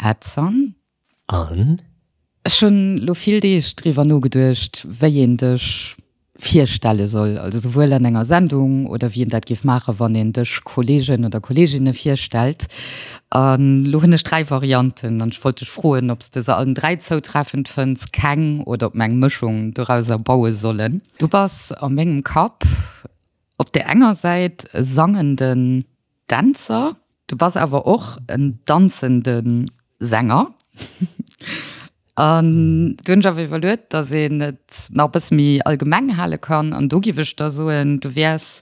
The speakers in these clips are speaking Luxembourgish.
Edson. An? Ech hunn lo vill Deeg driwwer nogeduecht, wéi een dech virstelle soll, also souwuel an enger Sendung oder wéi een dat géif maachen, wann een dech Kollegen oder Kolleeginne virstellt. An lo hunn ech 3 Varianten an ech wollt dech froen, ob s de se allen 3 zoutreffend fënns, keng oder ob mer eng Mëschung dorauser baue sollen. Du bass a mengem Kapp op där enger Säit e sangenden Dänzer, du bass awer och en danzende Sänger. An du hunn ech awer iwwerluet, datt een et nach e bësse méi allgemeng hale kann. An do giff ech da soen, du wäers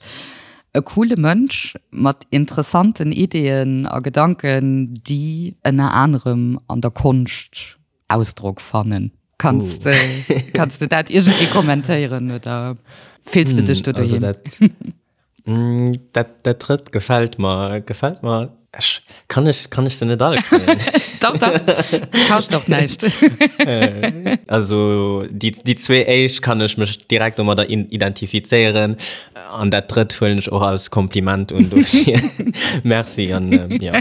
e coole Mënsch mat interessanten Ideeën a Gedanken, déi ënner anerem an der Konscht Ausdrock fannen. Kanns de, kanns de dat iergendwéi kommentéieren oder fills de dech do doheem? Dat, dat drëtt gefält mer, gefält mer. Ech, kann ech, kann ech se net alle kréien? Dach, dach, kascht och näischt. Also déi, déi zwee éischt kann ech mech direkt domadder identifizéieren an dat drëtt huelen ech och als Kompliment un, dofir merci an jo. Ja,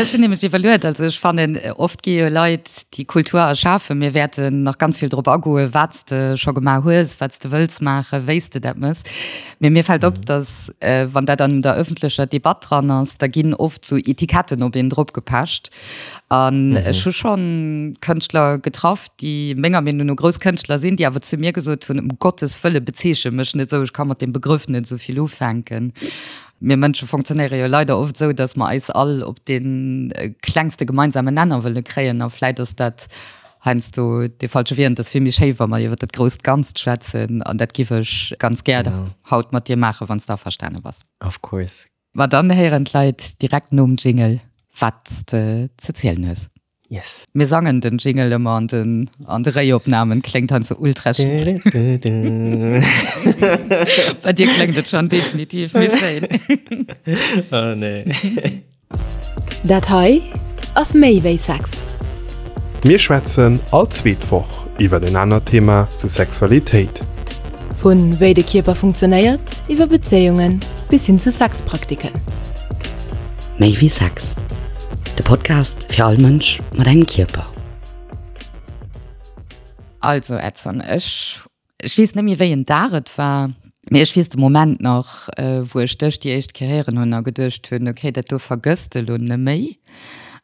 ech hunn nämlech iwwerluet, also ech fannen, oft gi jo Leit, déi Kultur erschafen, mir wäerten nach ganz vill drop agoen, wat s de scho gemaach hues, wat s de wëlls maachen, wéi s de dat méchs. Mee mir fält op, datt, wann dat an der ëffentlecher Debatt dran ass, da ginn oft sou Etiketten op een drop gepecht. An ech hu schonn Kënschtler getraff, déi menger Meenung no grouss Kënschtler sinn, déi awer zu mir gesot hunn, Ëm Gottes Wëlle bezeeche mech net esou, ech ka mat deem Begrëff net esou vill ufänken. Mir Mënsche funktionéiere jo leider oft esou, datt mer eis all op dee klengste gemeinsamen Nenner wëlle kréien. A vläit ass dat heiansdo dee falsche Wee. An et ass vill méi schéi, wa mer iwwer dat grousst Ganzt schwätzen. An dat giff ech ganz gär haut mat dir maachen, wann s de averstane bass. Of course. Ma dann héieren d'Leit direkt nom Jingle, wat s de ze zielen hues. Yes. Mir sangen den Jingle ëmmer an den an de Réiopnamen, kléngt heiansdo ultra schief. Bei dir kléngt et schon definitiv méi schéin. Oh nee. Dat hei ass méi wéi Sex. Mir schwätzen all zweet Woch iwwert en anert Thema zu Sexualitéit. Vu wéi de Kierper funktionéiert, iwwer Bezéiungen bis hin zu Sexpraktiken. Méi wéi Sex, de Podcast fir all Mënsch mat engem Kierper. Also Edson, ech ech weess net méi wéi en Dag et war, mee ech weess de Moment nach, wou ech dech déi éischt Kéier héieren hunn a geduecht hunn, okay, dat do vergëss de lo neméi.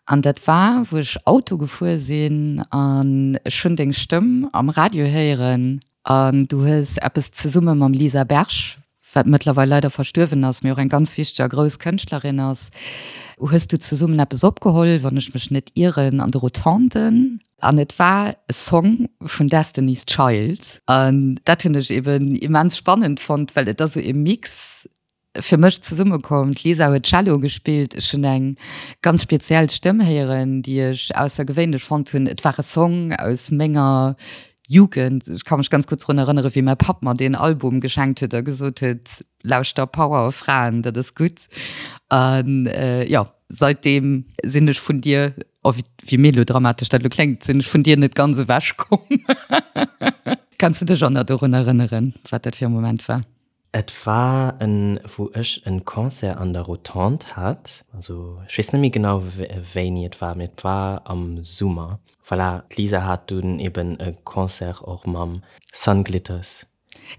An dat war, wou ech Auto gefuer sinn an ech hunn deng Stëmm am Radio héieren an du hues eppes zesumme mam Lisa Berg, wat mëttlerweil leider verstuerwen ass, mee och eng ganz wichteg a grouss Kënschtlerin ass, hues du zesummen eppes opgeholl, wann ech mech net ieren, an de Rotonden. An et war e Song vun Destiny's Child. An dat hunn ech eben immens spannend fonnt, well et ass esou e Mix fir mech zesummekomm. D'Lisa huet Cello gespillt, ech hunn eng ganz speziell Stëmm héieren, déi ech aussergewéinlech fonnt hunn. Et war e Song aus menger Jugend, ech ka mech ganz gutt drun erënnere wéi mäi Papp mer deen Album geschenkt huet a gesot huet, lauschter Power of Fraen, dat ass gutt. An jo, seitdeem sinn ech vun dir, oh wéi melodramatesch dat elo kléngt, sinn ech vun dir net ganz ewech komm. Kanns du dech och nach dorun erënneren, wat dat fir e Moment war? Et war en, wou ech en Concert an der Rotonde hat, also ech weess net méi genau wéini et war, mee et war am Summer. Voilà, d'Lisa hat dunn eben e Concert och mam Sun Glitters.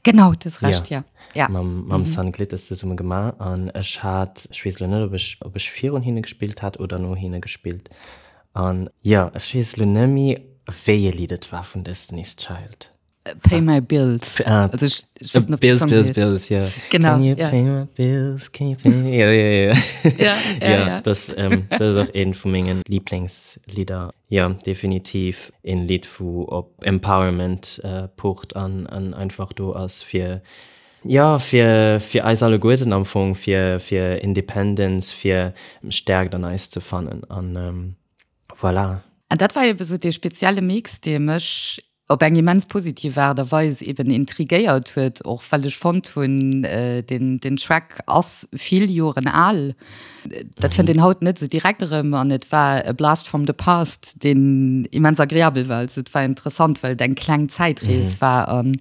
Genau, du hues Recht, ja. Ja. Mam, mam Sun Glitters zesumme gemaach an ech hat, ech weess elo net, ob ech, ob ech virun hinne gespillt hat oder no hinne gespillt. An jo, ech weess elo net méi, wéi e Lidd et war vun Destiny's Child. Pay my bills. Ah, also ich, ich weiß nicht, bills, bills, bills, ja. Genau. Can you ja. pay my bills? Can you pay? Ja, ja, ja. Ja, ja, ja. ja. Das, ähm, das ist auch een vu mengen Lieblingslieder. Ja, definitiv een Lied, wou op Empowerment äh, pocht an, an einfach do ass fir ja, fir, fir eis alleguerten am Fong, fir, fir Independence, fir Stärkt an eis ze fannen. An ähm, voilà. An dat war eben sou dee spezielle Mix, dee mech op eng immens positiv Aart a Weis eben intrigéiert huet, och well ech fonnt hunn, deen, deen Track ass vill Joren al, dat fënnt een haut net esou direkt erëm an et war e Blast from the past, deen immens agreabel war. Also et war interessant, well et eng kleng Zäitrees war an.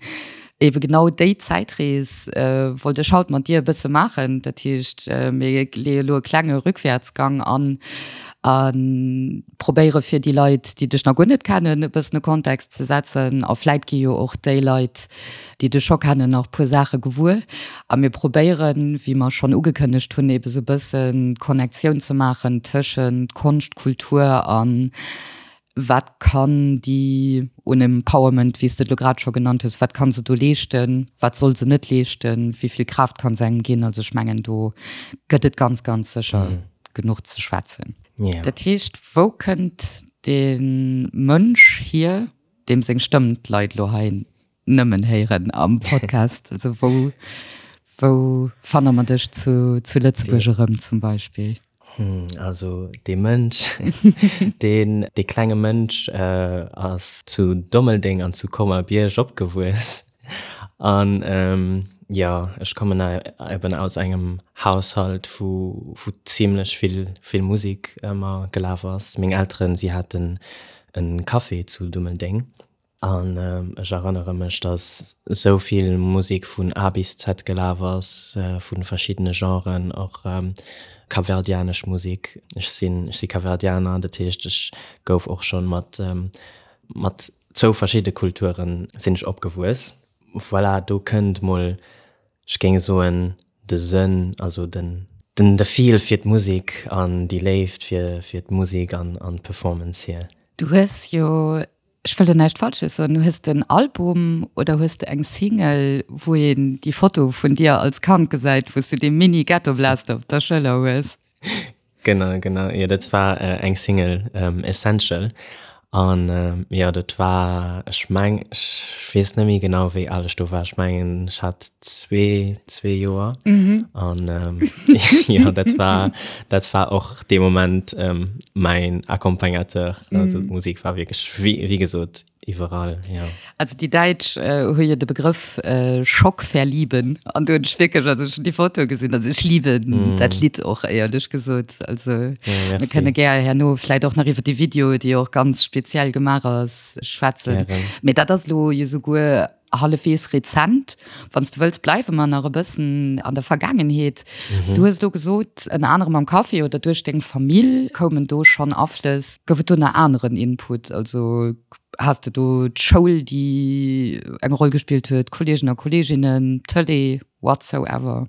Ebe genau déi Zäitrees wollt ech haut mat dir e bësse maachen. Dat heescht, mir leeë elo e klenge Rückwärtsgang an a probéiere fir déi Leit, déi dech nach guer net kennen, e bëssen e Kontext ze setzen. A vläit gi jo och déi Leit, déi dech scho kennen, nach e puer Saache gewuer. A mir probéieren, wéi mer schonn ugekënnegt hunn, ebe sou e bëssen d'Connectioun ze maachen tëschent Konscht, Kultur an Wat kann déi un Empowerment, wéi s de et elo grad scho genannt hues, wat ka se do leeschten, wat soll se net leeschten, wéi vill Kraaft ka se engem ginn? Also ech mengen, do gëtt et ganz, ganz sécher genuch ze schwätzen. Dat heescht, wou kënnt dee Mënsch hier, deem seng Stëmm d'Leit elo hei nëmmen héieren am Podcast? Also wou, wou fanne mer dech zu, zu Lëtzebuerg erëm zum Beispill? Also dee Mënsch, deen, dee klenge Mënsch ass zu Dommeldeng an zu Colmar-Bierg opgewuess. An jo, ech kommen eben aus engem Haushalt, wou, wou zimlech vill, vill Musek ëmmer gelaf ass. Meng Elteren, si haten e Café zu Dummeldeng. An ech erënnere mech, dass esou vill Musek vun A bis Z gelaf ass, vu verschiddene Genren, och kapverdianesch Musek. Ech sinn, ech si Kapverdianer, dat heescht, ech gouf och schonn mat, mat zwou verschidde Kulture sinn ech opgewuess. Voilà, do kënnt mol, ech géing soen, de Sënn, also den, den, de Feel fir d'Musek an déi Léift fir, fir d'Musek an, an d'Performance hier. Du hues jo Ech wëll do näischt Falsches soen, hues de en Album oder hues de eng Single, wou een déi Foto vun dir als Kand gesäit, wou s du dee Mini Ghetto Blaster op der Schëller hues? Genau, genau, jo dat war eng Single, Essential, an jo dat war, ech meng, ech weess net méi genau wéi al ech do war, ech mengen ech hat zwee, zwee Joer, an jo dat war, dat war och dee Moment mäin Accompagnateur, also d'Musek war wierklech wéi wéi gesot iwwerall, jo. Also déi Däitsch hu jo de Begrëff Schockverlieben an do hunn ech wierklech, also ech hunn déi Foto gesinn, also ech lieben dat Lidd och éierlech gesot, also mir kënne gär herno vläit och nach iwwer déi Video, déi och ganz speziell gemaach ass, schwätzen. Mee dat ass elo jo souguer Hallefwees rezent. Wann s de wëlls, bleiwe mer nach e bëssen an der Vergaangenheet. Du hues elo gesot, ënner anerem am Café oder duerch deng Famill koumen do schonn Aflëss. Gouf et do nach aneren Input? Also has de do d'Schoul, déi eng Roll gespillt huet, Kolleegen a Kolleeginnen, d'Tëlee, whatsoever?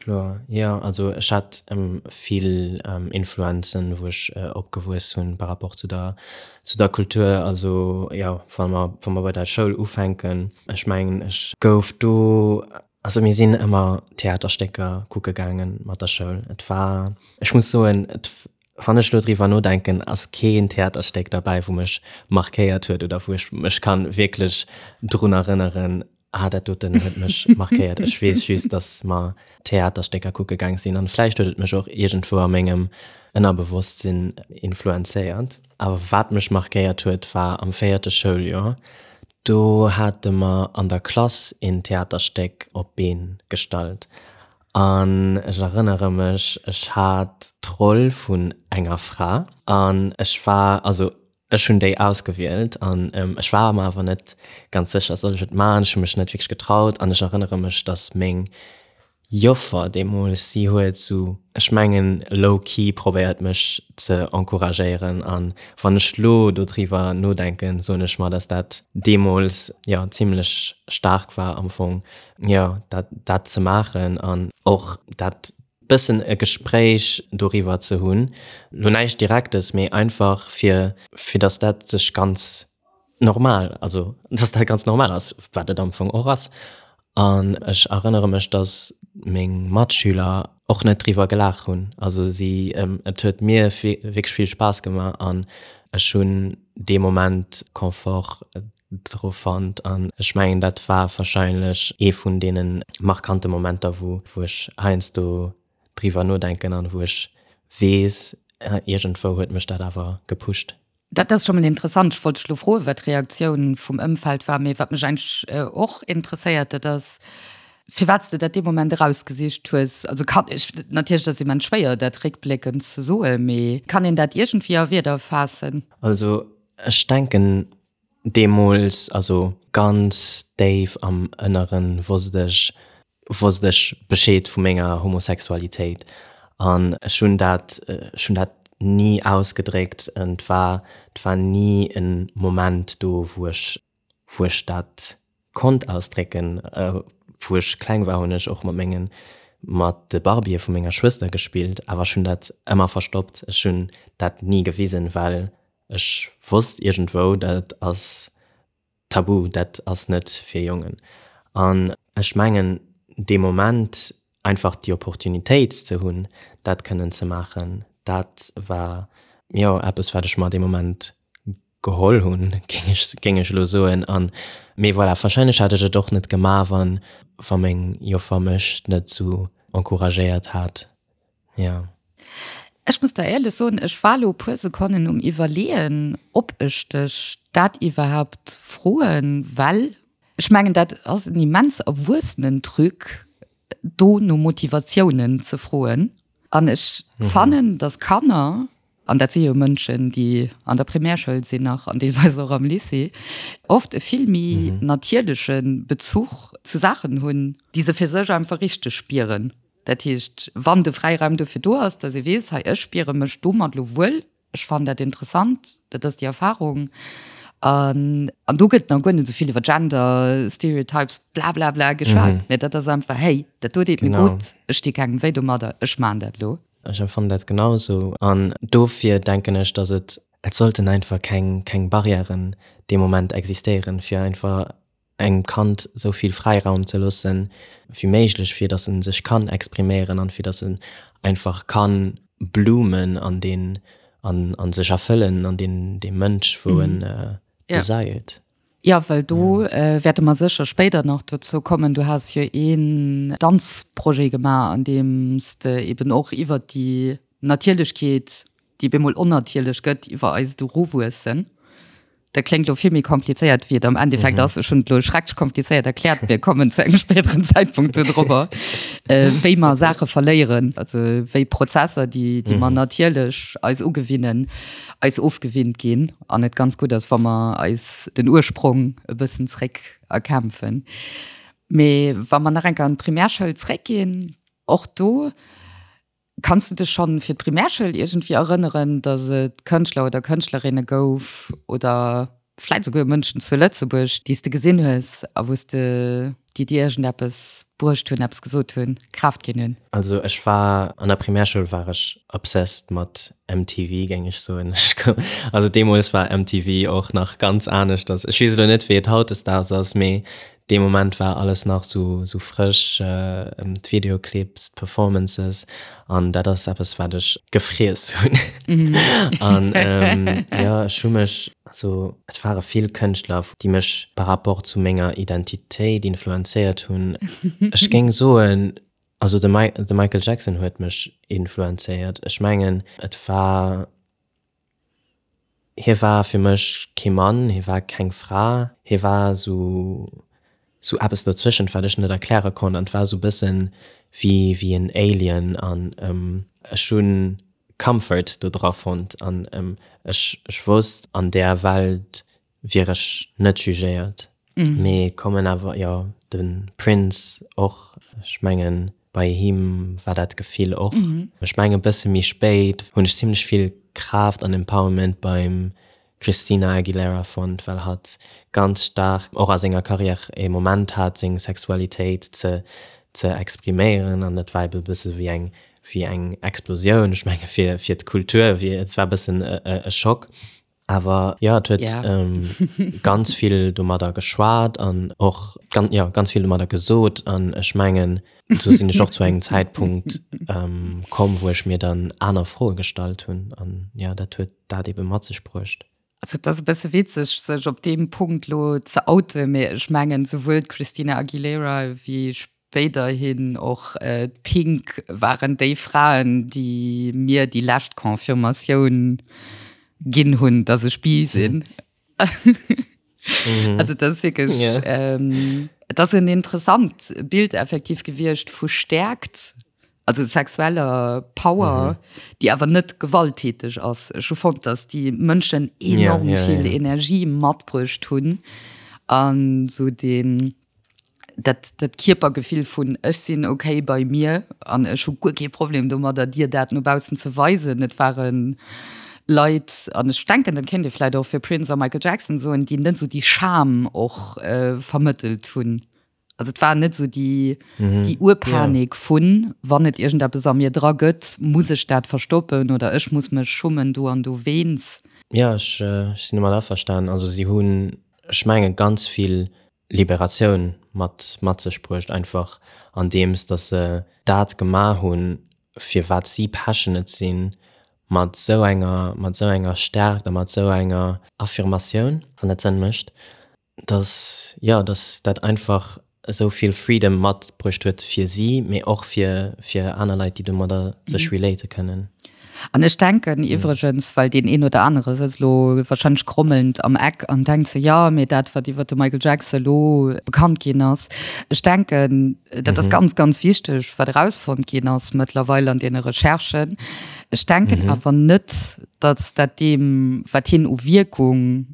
Kloer, jo. Also ech hat vill Influenzen, wou ech opgewuess hunn par rapport zu der, zu der Kultur. Also jo, wa mer, wa mer bei der Schoul ufänken, ech mengen ech gouf do, also mir sinn ëmmer Theaterstécker kucke gaange mat der Schoul. Et war, ech muss soen, et, wann ech elo driwwer nodenken, ass keen Theaterstéck derbäi, wou mech markéiert huet oder wou ech mech kann wierklech drun erënneren, Ah, dat doten huet mech markéiert. Ech weess just, dass mer Theaterstécker kucke gaang sinn an vläicht huet et mech och iergendwou a mengem Ënnerbewosstsinn influenzéiert. Awer wat mech markéiert huet, war am véierte Schouljoer. Do hate mer an der Klass een Theaterstéck op d'Been gestallt an ech erënnere mech, ech hat d'Roll vun enger Fra an ech war, also Ech hunn déi ausgewielt an ech war mer awer net ganz sécher, soll ech et maachen? Ech hu mech net wierklech getraut an ech erënnere mech, dass meng Joffer deemools, si huet sou, ech mengen low-key probéiert mech ze encouragéieren an wann ech lo dodriwwer nodenken, soen ech mer, dass dat deemools, jo, zimlech staark war am Fong, jo, dat dat ze maachen an och dat bëssen e Gespréich doriwwer ze hunn, lo näischt Direktes, mee einfach fir, fir datt dat sech ganz normal, also datt dat ganz normal ass, wat et am Fong och ass. An ech erënnere mech, datt meng Matschüler och net driwwer gelaach hunn. Also si, et huet mir wierklech vill Spaass gemaach an ech hunn dee Moment Confort dru fonnt an ech mengen dat war wahrscheinlech ee vun deene markante Momenter wou wou ech heiansdo driwwer nodenken an wou ech weess iergendwou huet mech dat awer gepusht. Dat ass scho mol interessant. Ech wollt dech elo froen, wat d'Reaktioun vum Ëmfeld war. Mee wat mech eigentlech och interesséiert, dat ass, firwat s de dat dee Moment erausgesicht hues. Also kann ech, natierlech ass immens schwéier, dat réckbléckend ze soen, mee kann een dat iergendwéi a Wierder faassen? Also ech denken, Deemools, also. Ganz déif am Ënneren wosst ech, wosst ech Bescheed vu menger Homosexualitéit an ech hunn dat, ech hunn dat ni ausgedréckt. Et war, et war ni e Moment do, wou ech, wou ech dat konnt ausdrécken. Wou ech kleng war, hunn ech och mat mengen, mat de Barbië vu menger Schwëster gespillt, awer ech hunn dat ëmmer verstoppt. Ech hunn dat ni gewisen, well ech wosst iergendwou, dat ass Tabu, dat ass net fir Jongen. An ech mengen, dee Moment einfach déi Opportunitéit ze hunn, dat kënnen ze maachen, dat war, jo, eppes, wat ech mer dee Moment geholl hunn, géing ech, géing ech elo soen. An, mee voilà, warscheinlech hätt ech et och net gemaach, wann, wa meng Joffer mech net esou encouragéiert hat. Ja. Ech muss der éierlech soen, ech war elo e puer Sekonnen um Iwwerleeën, ob ech dech dat iwwerhaupt froen, well ech mengen, dat ass en immens erwuessenen Truc, do no Motivatiounen ze froen. An ech fannen, dass Kanner, an dat si jo Mënschen, déi an der Primärschoul sinn nach an deelweis och am Lycée, oft e vill méi natierleche Bezuch zu Saachen hunn, déi se fir sech einfach richteg spieren. Dat heescht, wann de Fräiraum dofir do ass, dass ee weess, hei ech spiere mech domat elo wuel, ech fannen dat interessant, dat ass déi Erfahrung. An an do gëtt nach guer net esou vill iwwer Gender Stereotypes blablabla geschwat, mä dat ass einfach, hey, dat do deet mir gutt, ech di kengem wéi domadder, ech maachen dat elo. Ech empfannen dat genau esou an dofir denken ech, dass et, et sollten einfach keng keng Barrièren dee Moment existéieren, fir einfach engem Kand esou vill Fräiraum ze loossen wéi méiglech, fir datt en sech kann expriméieren an fir datt en einfach kann bloomen an deen an an sech erfëllen an deen dee Mënsch wou en desired. Jo, well do wäerte mer sécher spéider nach dozou kommen. Du has jo een Danzprojet gemaach, an deem s de eben och iwwert déi Natierlechkeet, déi bemol onnatierlech gëtt, iwwer eist Eruwuessen. Dat kléngt elo vill méi komplizéiert, wéi et am Endeffekt ass. Ech hunn et elo schrecklech komplizéiert erkläert. Mir kommen zu engem spéideren Zäitpunkt do drobber, wéi mer Saache verléieren, also wéi Prozesser, déi, déi mer natierlech eis ugewinnen, eis ofgewinnt ginn an et ganz gutt ass, wa mer eis den Ursprong e bëssen zréck erkämpfen. Mee wa mer nach eng Kéier an d'Primärschoul zréckginn, och do, Kanns du dech schonn fir d'Primärschoul iergendwéi erënneren, datt et Kënschtler oder Kënschtlerinne gouf oder vläit esouguer Mënschen zu Lëtzebuerg, déi s de gesinn hues a wou s de, déi dir iergendeppes bruecht hunn, eppes gesot hunn, Kraaft ginn hunn? Also ech war, an der Primärschoul war ech obsessed mat MTV, géing ech soen. Also deemools war MTV och nach ganz aneschters. Ech weess elo net, wéi et hautdesdaags ass, mee Dee Moment war alles nach sou frësch, d'Videoclips, d'Performances an dat ass eppes wat ech gefriess hunn. An jo, ech hu mech, also et ware vill Kënschtler, déi mech par rapport zu menger Identitéit influenzéiert hunn. Ech géing soen, also de Michael Jackson huet mech influenzéiert. Ech mengen et war Hie war fir mech kee Mann, hie war keng Fra, hie war sou sou eppes dozwëschent, wat ech net erkläre konnt an et war sou bëssen wéi wéi en Alien an ech hu Comfort do dra fonnt an ech ech wosst an där Welt wier ech net jugéiert. Mee kommen awer, jo, de Prince och, ech mengen bei him war dat Gefill och. Ech mengen e bësse méi spéit hunn ech zimlech vill Kraaft an Empowerment beim Christina Aguilera fonnt, well hatt ganz staark och a senger Karriär e Moment hat seng Sexualitéit ze ze expriméieren an dat war ebe bësse wéi eng wéi eng Explosioun, ech menge fir fir d'Kultur, wéi et war e bëssen e Schock. Awer jo, et huet ganz vill domadder geschwat an och jo ganz vill domadder gesot. An ech mengen, do sinn ech och zu engem Zäitpunkt komm, wou ech mir dann aner Froe gestallt hunn. An jo, dat huet dat ebe mat sech bruecht. Also et ass e bësse witzeg, sech op deem Punkt elo ze outen, mee ech mengen, souwuel d'Christina Aguilera wéi Spéiderhin och d'Pink waren déi Fraen, déi mir déi lescht Confirmatioun ginn hunn, dass ech bi sinn. Also dat ass wierklech, et ass en interessant Bild effektiv gewiescht vu Stäerkt, also sexueller Power, déi awer net gewalttäteg ass. Ech hu fonnt, dass déi Mënschen enorm vill Energie matbruecht hunn. An esou deen, dat, dat Kierpergefill vun ech sinn okay bei mir an ech hu guer kee Problem domadder, dir dat no baussen ze weisen. Et ware Leit, an ech denken, dat kéint ee vläicht och fir Prince a Michael Jackson soen, déi net esou déi Scham och vermëttelt hunn. Also et war net esou déi, déi Urpanik vun, wann et iergendeppes a mir dra gëtt, muss ech dat verstoppen oder ech muss mech schummen do an dowéinst. Jo, ech sinn domat averstanen. Also si hunn, ech mengen, ganz vill Liberatioun mat mat sech bruecht, einfach andeems datt se dat gemaach hunn, fir wat si passionate sinn, mat esou enger mat esou enger Stärkt a mat esou enger Affirmatioun, wann dat Sënn mécht, datt, jo, datt dat einfach esou vill Freedom matbruecht huet fir si, mee och fir fir aner Leit, déi domadder sech relate kënnen. An ech denken iwwregens, well deen een oder anere sëtzt elo wahrscheinlech grommelnd am Eck an denkt sou, jo, mee dat, wat iwwer de Michael Jackson elo bekannt ginn ass, ech denken, dat ass ganz, ganz wichteg, wat erausfonnt ginn ass mëttlerweil an deene Recherchen. Ech denken awer net, datt dat deem, wat hien u Wierkung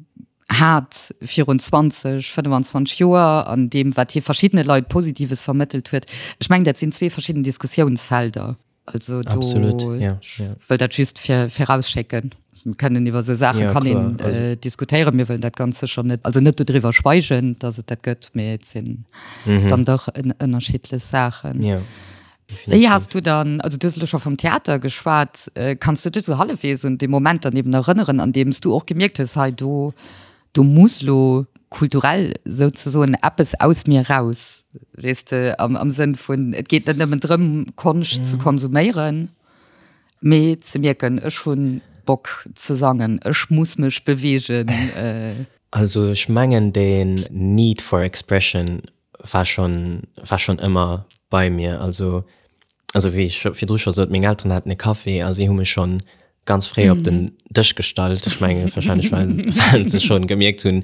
hat virun 20, 25 Joer an deem, wat hie verschiddene Leit Positives vermëttelt huet, ech mengen, dat sinn zwee verschidden Diskussiounsfelder. Also do Absolut, ja, ja. wëll dat just fir virausschécken. Mir kënnen iwwer esou Saache Ja, kann kloer, een also äh, diskutéieren. Mir wëllen dat ganz sécher net, also net dodriwwer schweigen, datt et dat gëtt, mee et sinn dann dach ën ënnerschiddlech Saachen. Ja, Wéi definitiv. has du dann, also du hues elo scho vum Theater geschwat, äh, kanns du dech esou hallefwegs un dee Moment dann eben erënneren, an deem s du och gemierkt hues, hei do do muss lo kulturell souzesoen eppes aus mir raus, weess de, am, am Sënn vun, et geet net nëmmen drëm, Konscht ze konsuméieren, mee ze mierken, ech hu Bock ze sangen, ech muss mech beweegen. Also ech mengen deen Need for expression war schonn, war schonn ëmmer bei mir. Also, also wéi ech virdru scho sot, meng Elteren haten e Café a si hu mech schonn ganz fréi op den Dësch gestallt. Ech menge wahrscheinlech well, well se schonn gemierkt hunn,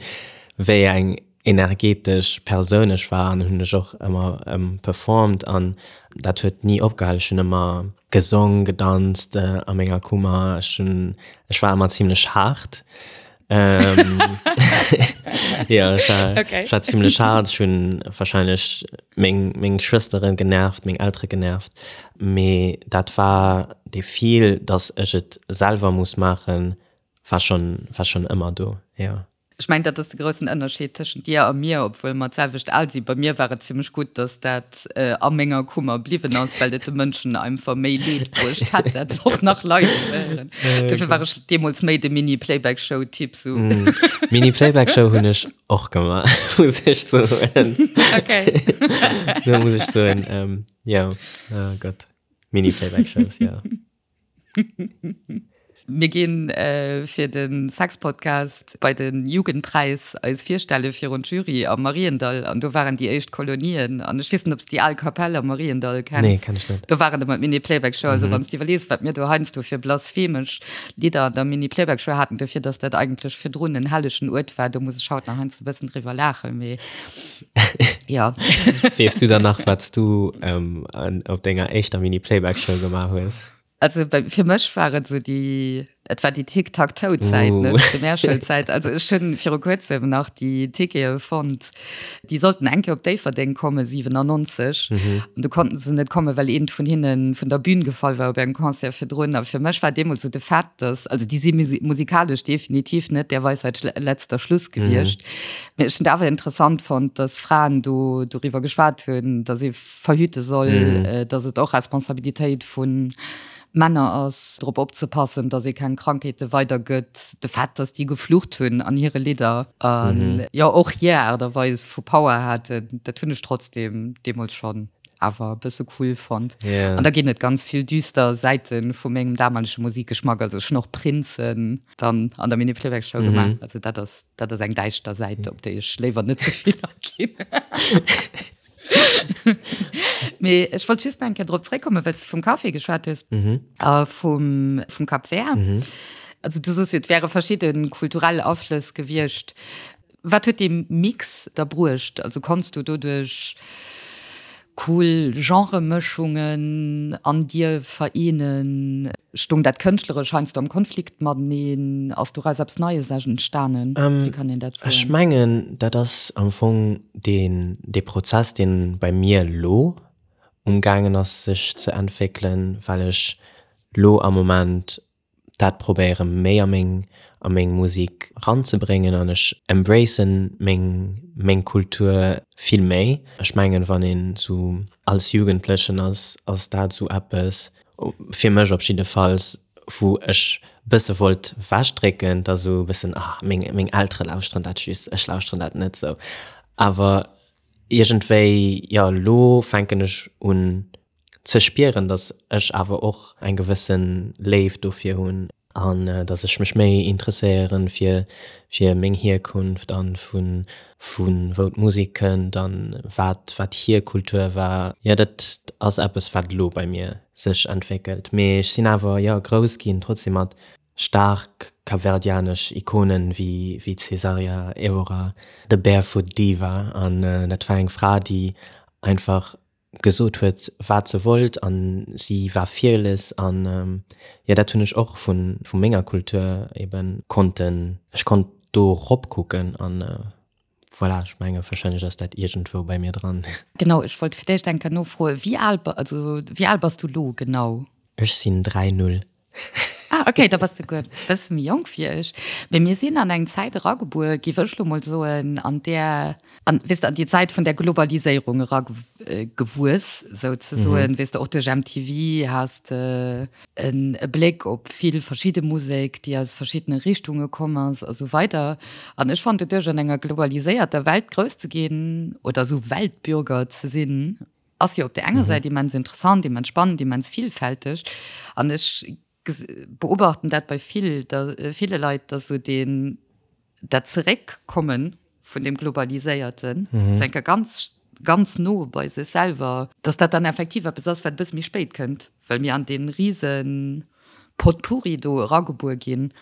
wéi eng energetesch Persoun ech war an hunn ech och ëmmer performt an dat huet ni opgehal. Ech hunn ëmmer gesong, gedanzt a menger Kummer. Ech hunn, ech war ëmmer zimlech haart. Ähm, ja, ech war, Okay. ech war ziemlech hart. Ech hunn wahrscheinlech meng, meng Schwësteren genervt, meng Eltere genervt. Mee dat war dee Feel, dass ech et selwer muss maachen, war schon, war schon ëmmer do, ja. Ech mengen, dat ass de groussen Ënnerscheed tëschent dir a mir, obwuel mer d'selwecht al sinn. Bei mir war et zimmlech gutt, dass dat a menger Kummer bliwwen ass, well et de Mënschen einfach méi Leed bruecht hätt, dat och nach live ze héieren. Dofir war ech deemools méi de Mini-Playback-Show-Typ sou. Mini-Playback-Show hunn ech och gemaach, muss ech soen. Okay. Do muss ech soen, jo, oh Gott, Mini-Playback-Shows, jo. Mir ginn fir de Sexpodcast bei de Jugendpräis eis virstelle virun d'Jury am Mariendall an do waren déi éischt Kolonien an ech weess net, ob s de déi al Kapell am Mariendall kenns. Nee, kenn ech net. Do waren ëmmer d'Mini-Playback-Show. Also wann s de iwwerlees, wat mir do heiansdo fir blasphemesch Lidder an der Mini-Playback-Show haten, dofir datt dat eigentlech virdrun en hellegen Uert war, do muss ech haut nach heiansdo e bëssen driwwer laachen, mee jo. Weess du dann nach, wat s du op denger éischter Mini-Playback-Show gemaach hues? Also bei, fir mech war et sou déi, et war déi Tic-Tac-Toe-Zäit, ne, Uh. d'Primärschoulzäit. Also ech hunn viru kuerzem nach déi Tickete fonnt. Déi sollten eng Kéier op Déifferdeng kommen, 97. An du konnten se net kommen, well eent vun hinne vun der Bühn gefall war op engem Concert virdrun. A fir mech war deemools sou de Fait, dass, also déi si musikalesch definitiv net der Weisheit letzter Schluss gewiescht. Mee ech hunn et awer interessant fonnt, dass Fraen do doriwwer geschwat hunn, dass ee verhüte soll, dass et och Responsabilitéit vu Männer ass, drop opzepassen, dass ee keng Krankheete weidergëtt. De Fait, dass déi geflucht hunn an hire Lidder an jo och hir Aart a Weis vu Power haten, dat hunn ech trotzdeem deemools schonn awer e bësse cool fonnt. An da ginn et ganz vill düster Säite vu mengem damalege Musikgeschmack. Also ech hunn och Prinzen dann an der Mini-Playback-Show gemaach. Also dat ass, dat ass eng däischter Säit, op déi ech léiwer net ze vill aginn. Mee ech wollt just nach eng Kéier drop zréckkommen, well s de vum Café geschwat hues a vum, vum Cap Vert. Also du soos jo, et wäre verschidde kulturell Aflëss gewiescht. Wat huet dee Mix da bruecht? Also konns du doduerch. cool Genremëschungen an dir vereenen? Stoung dat Kënschtleresch heiansdo am Konflikt mateneen? Ass doraus eppes Neies entstanen? Wéi kann een dat soen? Ech mengen, dat ass am Fong deen, dee Prozess, deen bei mir elo umgaangen ass sech ze entwéckelen, well ech lo am Moment dat probéiere méi a meng a meng Musik ranzebréngen an ech embracen meng meng Kultur vill méi. Ech mengen wann een sou als Jugendlechen ass, ass dat sou eppes, fir mech op jiddefalls, wou ech bësse wollt wechdrécken, da sou bëssen ah meng meng Eltere lauschteren dat just, ech lauschteren dat net sou. Awer iergendwéi jo elo fänken ech un ze spieren, dass ech awer och eng gewësse Léift dofir hunn an dass ech mech méi interesséieren fir fir meng Hierkunft an vu vu wou d'Musek kënnt an wat wat hir Kultur war. Jo dat ass eppes wat elo bei mir sech entwéckelt, mee ech sinn awer jo grouss ginn trotzdem mat staark kapverdianesch Ikonen wéi wéi d'Cesaria Evora, the barefoot diva an dat war eng Fra déi einfach gesot huet wat se wollt an si war fearless an jo dat hunn ech och vun vu menger Kultur eben konnten, ech konnt do rop kucken an voilà, ech menge wahrscheinlech ass dat iergendwou bei mir dran. Genau, ech wollt fir d'éischt eng Kéier nofroen, wéi al, also wéi al bass du lo genau? Ech sinn 3 0. Ah, okay, da bass de guer bësse méi jonk wéi ech. Mee mir sinn an eng Zäit eragebuer, géif ech lo mol soen, an där, an, weess de, an déi Zäit vun der Globaliséierung eragewuess, souzesoen. Weess de, och duerch MTV has de en e Bléck op vill verschidde Musek, déi aus verschiddene Richtunge komm ass a sou weider. An ech fannen, doduerch an enger globaliséierter Welt grouss ze ginn oder esou Weltbürger ze sinn, Ass jo op der enger Säit immens interessant, immens spannend, immens villfälteg. An ech beobachten dat bei vill, ville Leit, dass esou deen, dat Zeréckkomme vun deem Globaliséierten, sou eng Kéier ganz, ganz no bei sech selwer, dass dat dann effektiv eppes ass, wat e bësse méi spéit kënnt, well mir an dee rise Potpourri do eragebuer ginn.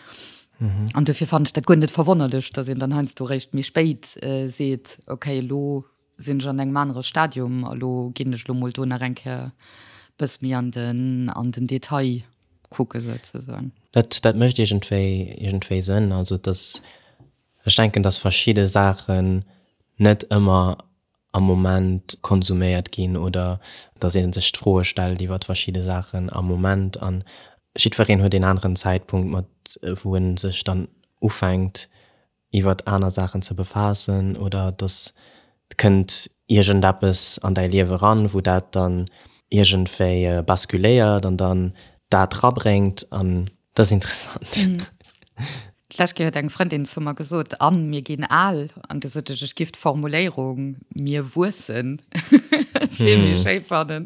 An dofir fannen ech dat guer net verwonnerlech, dass een dann heiansdo eréischt méi spéit seet, okay, elo sinn ech an engem anere Stadium a lo ginn ech lo mol do nach eng Kéier bësse méi an den, an den Detail kucke souzesoen. Dat, dat mécht iergendwéi, iergendwéi Sënn. Also dass, ech denken, dass verschidde Saachen net ëmmer am Moment konsuméiert ginn oder dass ee sech d'Froe stellt iwwer verschidde Saachen am Moment an jiddwereen huet een aneren Zäitpunkt mat wou en sech dann ufänkt iwwert aner Saachen ze befaassen oder dass et kënnt iergendeppes an däi Liewe ran, wou dat dann iergendwéi basculéiert an dann dat rabréngt an dat ass interessant. D'lescht Kéier huet eng Frëndin zu mer gesot, Anne, mir ginn al. An du sot ech, ech giff d'Formuléierung mir wuessen vill méi schéi fannen.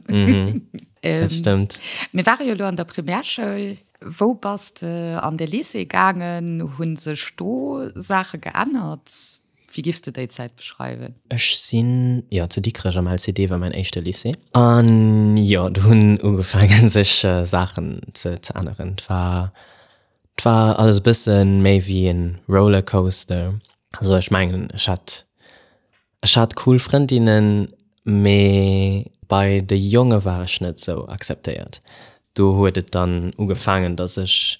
Dat stëmmt. Mir ware jo elo an der Primärschoul. Wou bass de an de Lycée gaangen? Hu sech do Saache geännert? Wéi giffs de déi Zäit beschreiwen? Ech sinn, jo, zu Dikrech am LCD war mäin éischte Lycée. An jo, do hunn ugefaangen sech Saachen ze änneren. Et war, et war alles e bësse méi wéi e Rollercoaster. Also ech mengen, ech hat Ech hat cool Frëndinnen, mee bei de Jonge war ech net sou akzeptéiert. Do huet et dann ugefaangen, dass ech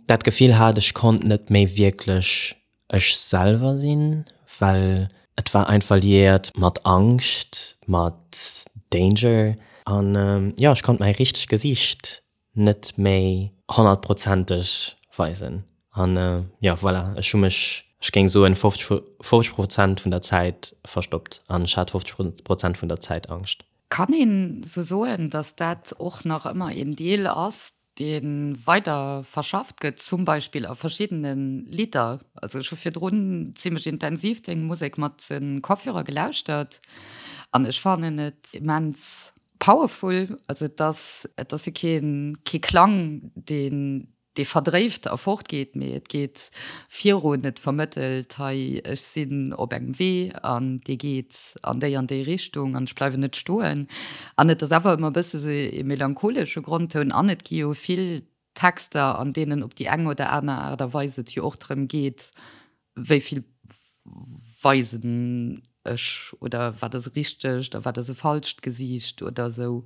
dat Gefill hat, ech konnt net méi wierklech ech selwer sinn, well et war einfach liéiert mat Angscht, mat Danger an jo, ech konnt mäi richtegt Gesiicht net méi honnertprozenteg weisen. An jo, voilà, ech hu mech, ech géing soen, 50, 50 Prozent vun der Zäit verstoppt an ech hat 50 Prozent vun der Zäit Angscht. Kann een sou soen, datt dat och nach ëmmer een Deel ass, dee weider verschafft gëtt, zum Beispill a verschiddene Lidder? Also ech hu virdrun zimmlech intensiv deng Musek mat de Kopfhörer gelauschtert an ech fannen et immens Powerful, also et ass, et ass jo keen, kee Klang, deen, dee verdréift a fortgeet, mee et geet virun, et vermëttelt, hei ech sinn op engem Wee an dee geet an déi an déi Richtung an ech bleiwen net stoen. An et ass awer ëmmer e bësse sou e melancholesche Grondtoun an et gi jo vill Texter, an deenen op déi eng oder aner Aart a Weis et jo och drëm geet, wéi vill weisen. ech oder wat ass e richtegt a wat ass e falscht Gesiicht oder esou.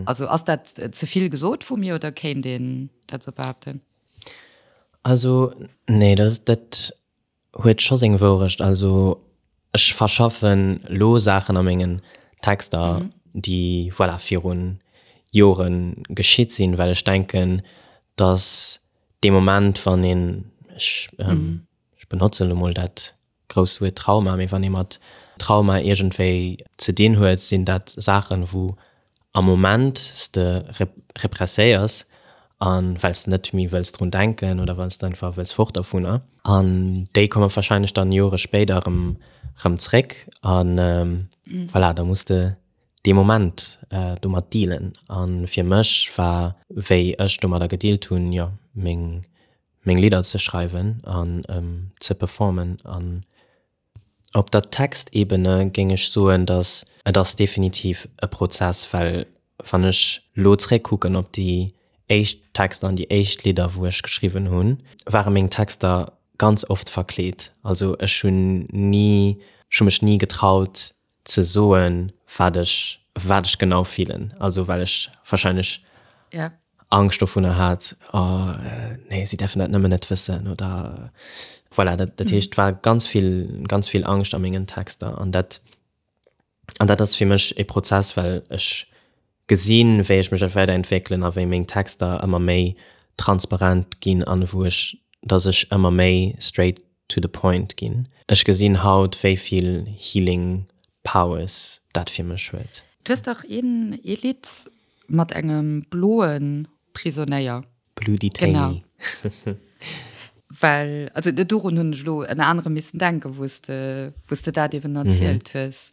Also ass dat ze vill gesot vu mir oder kéint een dat esou behaapten? Also nee, dat dat huet scho seng Wourecht. Also ech verschaffen lo Saachen a mengen Texter, déi voilà virun Jore geschitt sinn, well ech denken, datt dee Moment wann een, ech ech benotzen elo mol dat grousst Wuert Trauma, mee wann ee mat Trauma iergendwéi ze dinn huet, sinn dat Saachen, wou am Moment s de represséiers a well s de net méi wëlls drun denken oder well s de einfach wëlls fort dovunner. An déi komme warscheinlech dann Jore spéider erëm erëm zréck a voilà, da muss de dee Moment domat dealen. A fir mech war, wéi ech domadder gedealt hunn, jo, meng meng Lidder ze schreiwen an ze performen. An op der Textebene géing ech soen, datt et ass definitiv e Prozess, well wann ech lo zréckkucken op déi éischt Texter an déi éischt Lidder wou ech geschriwwen hunn, ware meng Texter ganz oft verkleet. Also ech hunn ni, ech hu mech ni getraut ze soen, wat ech, wat ech genau fillen. Also well ech wahrscheinlech ja. Angscht dovunner hat, oh nee, si däerfen dat nëmmen net wëssen oder voilà. Dat, dat heescht, et war ganz vill, ganz vill Angscht a mengen Texter an dat, an dat ass fir mech e Prozess, well ech gesinn, wéi ech mech weiderentwéckelen a wéi meng Texter ëmmer méi transparent ginn an wou ech, dass ech ëmmer méi straight to the point ginn. Ech gesinn haut wéi vill healing powers dat fir mech huet. Du hues dach een ee Lidd mat engem bloe Prisonéier. Blue Detainee. Genau. Well, also dorun hunn ech elo ënner anerem missen denken, wou s de, wou s de dat eben erzielt hues.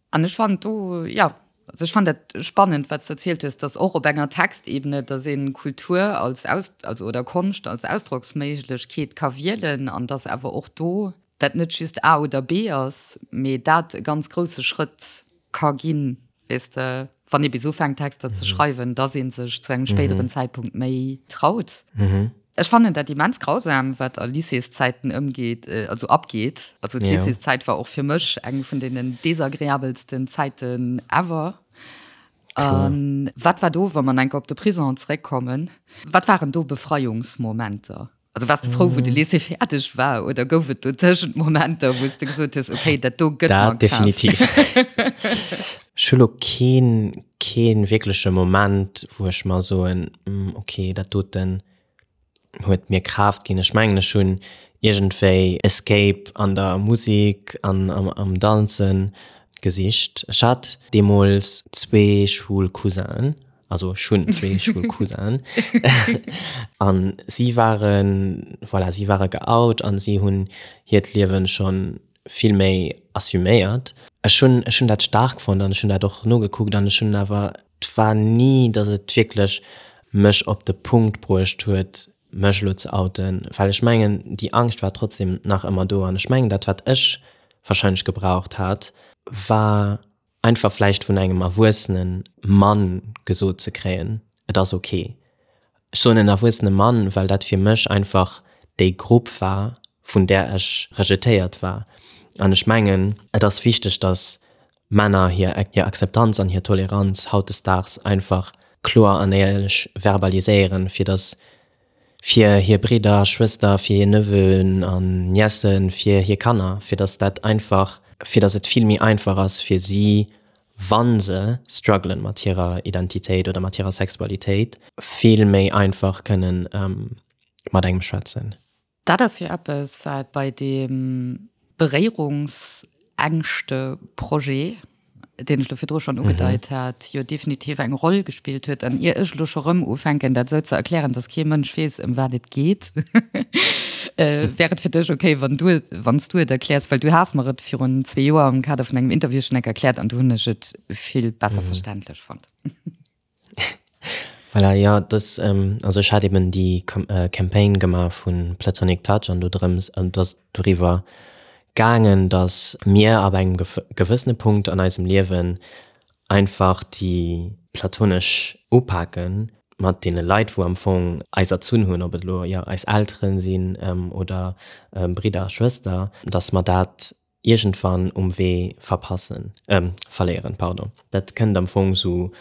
An ech fannen do, jo, also ech fannen dat spannend, wat s de erzielt hues, dass och op enger Textebene, dass ee Kultur als Aus-, also oder Konscht als Ausdrocksméiglechkeet ka wielen an dass awer och do dat net just A oder B ass, mee dat e ganz grousse Schrëtt ka ginn, weess de, wann ee bis ufänkt Texter ze schreiwen, dass ee sech zu engem spéideren Zäitpunkt méi traut. Ech fannen dat immens grausam, wat a Lycéeszäiten ëmgeet, also abgeet. Also d'Lycéeszäit war och fir mech eng vun deenen desagreabelsten Zäiten ever. A wat war do, wa mer enker op de Prison zeréckkommen, wat waren do Befreiungsmomenter? Also waars de frou, wou de Lycée fäerdeg war oder gouf et dotëschent Momenter, wou s de gesot hues, okay, dat do gëtt mer Kraaft? Dat definitiv. Ech hu lo keen, kee wierkleche Moment, wou ech mer soen, okay, dat doten huet mir Kraaft ginn. Ech mengen, ech hunn iergendwéi Escape an der Musek an am Danzen gesicht. Ech hat deemools zwee schwul Cousinen, also ech hunn zwee schwul Cousinen an si waren, voilà, si ware geout an si hunn hiert Liewen schonn vill méi assuméiert. Ech hunn, ech hunn dat staark fonnt an ech hunn dat och nogekuckt an ech hunn awer, et war ni, datt et wierklech mech op de Punkt bruecht huet, mech elo ze outen, well ech mengen, déi Angscht war trotzdem nach ëmmer do an ech mengen, dat wat ech wahrscheinlech gebraucht hat, war einfach vläicht vun engem erwuessene Mann gesot ze kréien, et ass ok. Ech soen en erwuessene Mann, well dat fir mech einfach déi Grupp war, vun där ech rejetéiert war. An ech mengen, et ass wichteg, datt Männer hir hir Akzeptanz an hir Toleranz hautdesdaags einfach kloer an éierlech verbaliséieren, fir datt fir hir Bridder, Schwëster, fir hir Neveuxen an Niècen, fir hir Kanner, fir datt dat einfach, fir datt et vill méi einfach ass fir si, wa se struggelen mat hirer Identitéit oder mat hirer Sexualitéit, vill méi einfach kënnen mat engem schwätzen. Dat ass jo eppes, wat bei deem Beréierungsängschte-Projet, deen ech elo virdru schonn ugedeit hat, jo definitiv eng Roll gespillt huet. An ier ech elo scho rëm ufänken, dat esou ze erklären, dass kee Mënsch weess, ëm wat et geet, wär et fir dech okay, wann du et, wann s du et erkläers? Well du has mer et virun zwee Joer am Kader vun engem Interview schonn enk erkläert an du hunn ech et vill besser verständlech fonnt. Voilà, jo, dass, also ech hat eben déi Campaign gemaach vu Platonic Touch an do drëms, an et ass doriwwer gaangen, dass mir ab engem gewëssene Punkt an eisem Liewen einfach déi platonesch upaken mat deene Leit, wou am Fong eis erzunn hunn, ob et elo, jo, eis Eltere sinn oder Bridder a Schwëster, dass mer dat. iergendwann um Wee verpassen, verléieren, pardon. Dat kënnt am Fong sou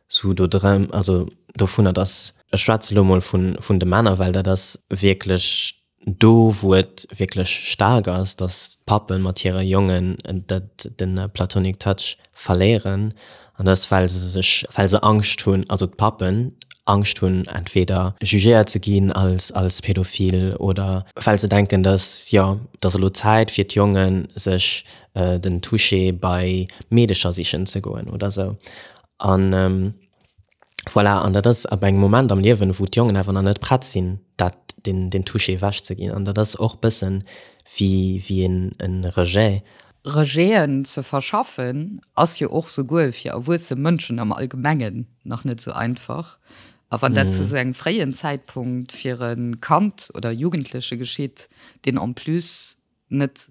sou do drëm, also dovunner, dass, ech schwätze lo mol vun vun de Männer, well dat ass wierklech do wou et wierklech staark ass, dass d'Pappe mat hire Jongen dat de platonic touch verléieren an dat ass well se sech, well se Angscht hunn, also d'Pappen Angscht hunn entweder jugéiert ze ginn als als pädophil oder well se denken, dass jo, et ass elo Zäit fir d'Jongen sech den Toucher bei Meedecher sichen ze goen oder sou. An voilà, an dat ass ab engem Moment am Liewen, wou d'Jongen awer nach net prett sinn, dat, deen, deen Toucher ewechzeginn. An dat ass och bëssen wéi, wéi een, e Rejet. Rejeten ze verschaffen, ass jo och souguer fir erwuesse Mënschen am Allgemengen nach net sou einfach. A wann dat zu sou engem fréien Zäitpunkt fir e Kand oder Jugendleche geschitt, deen en plus net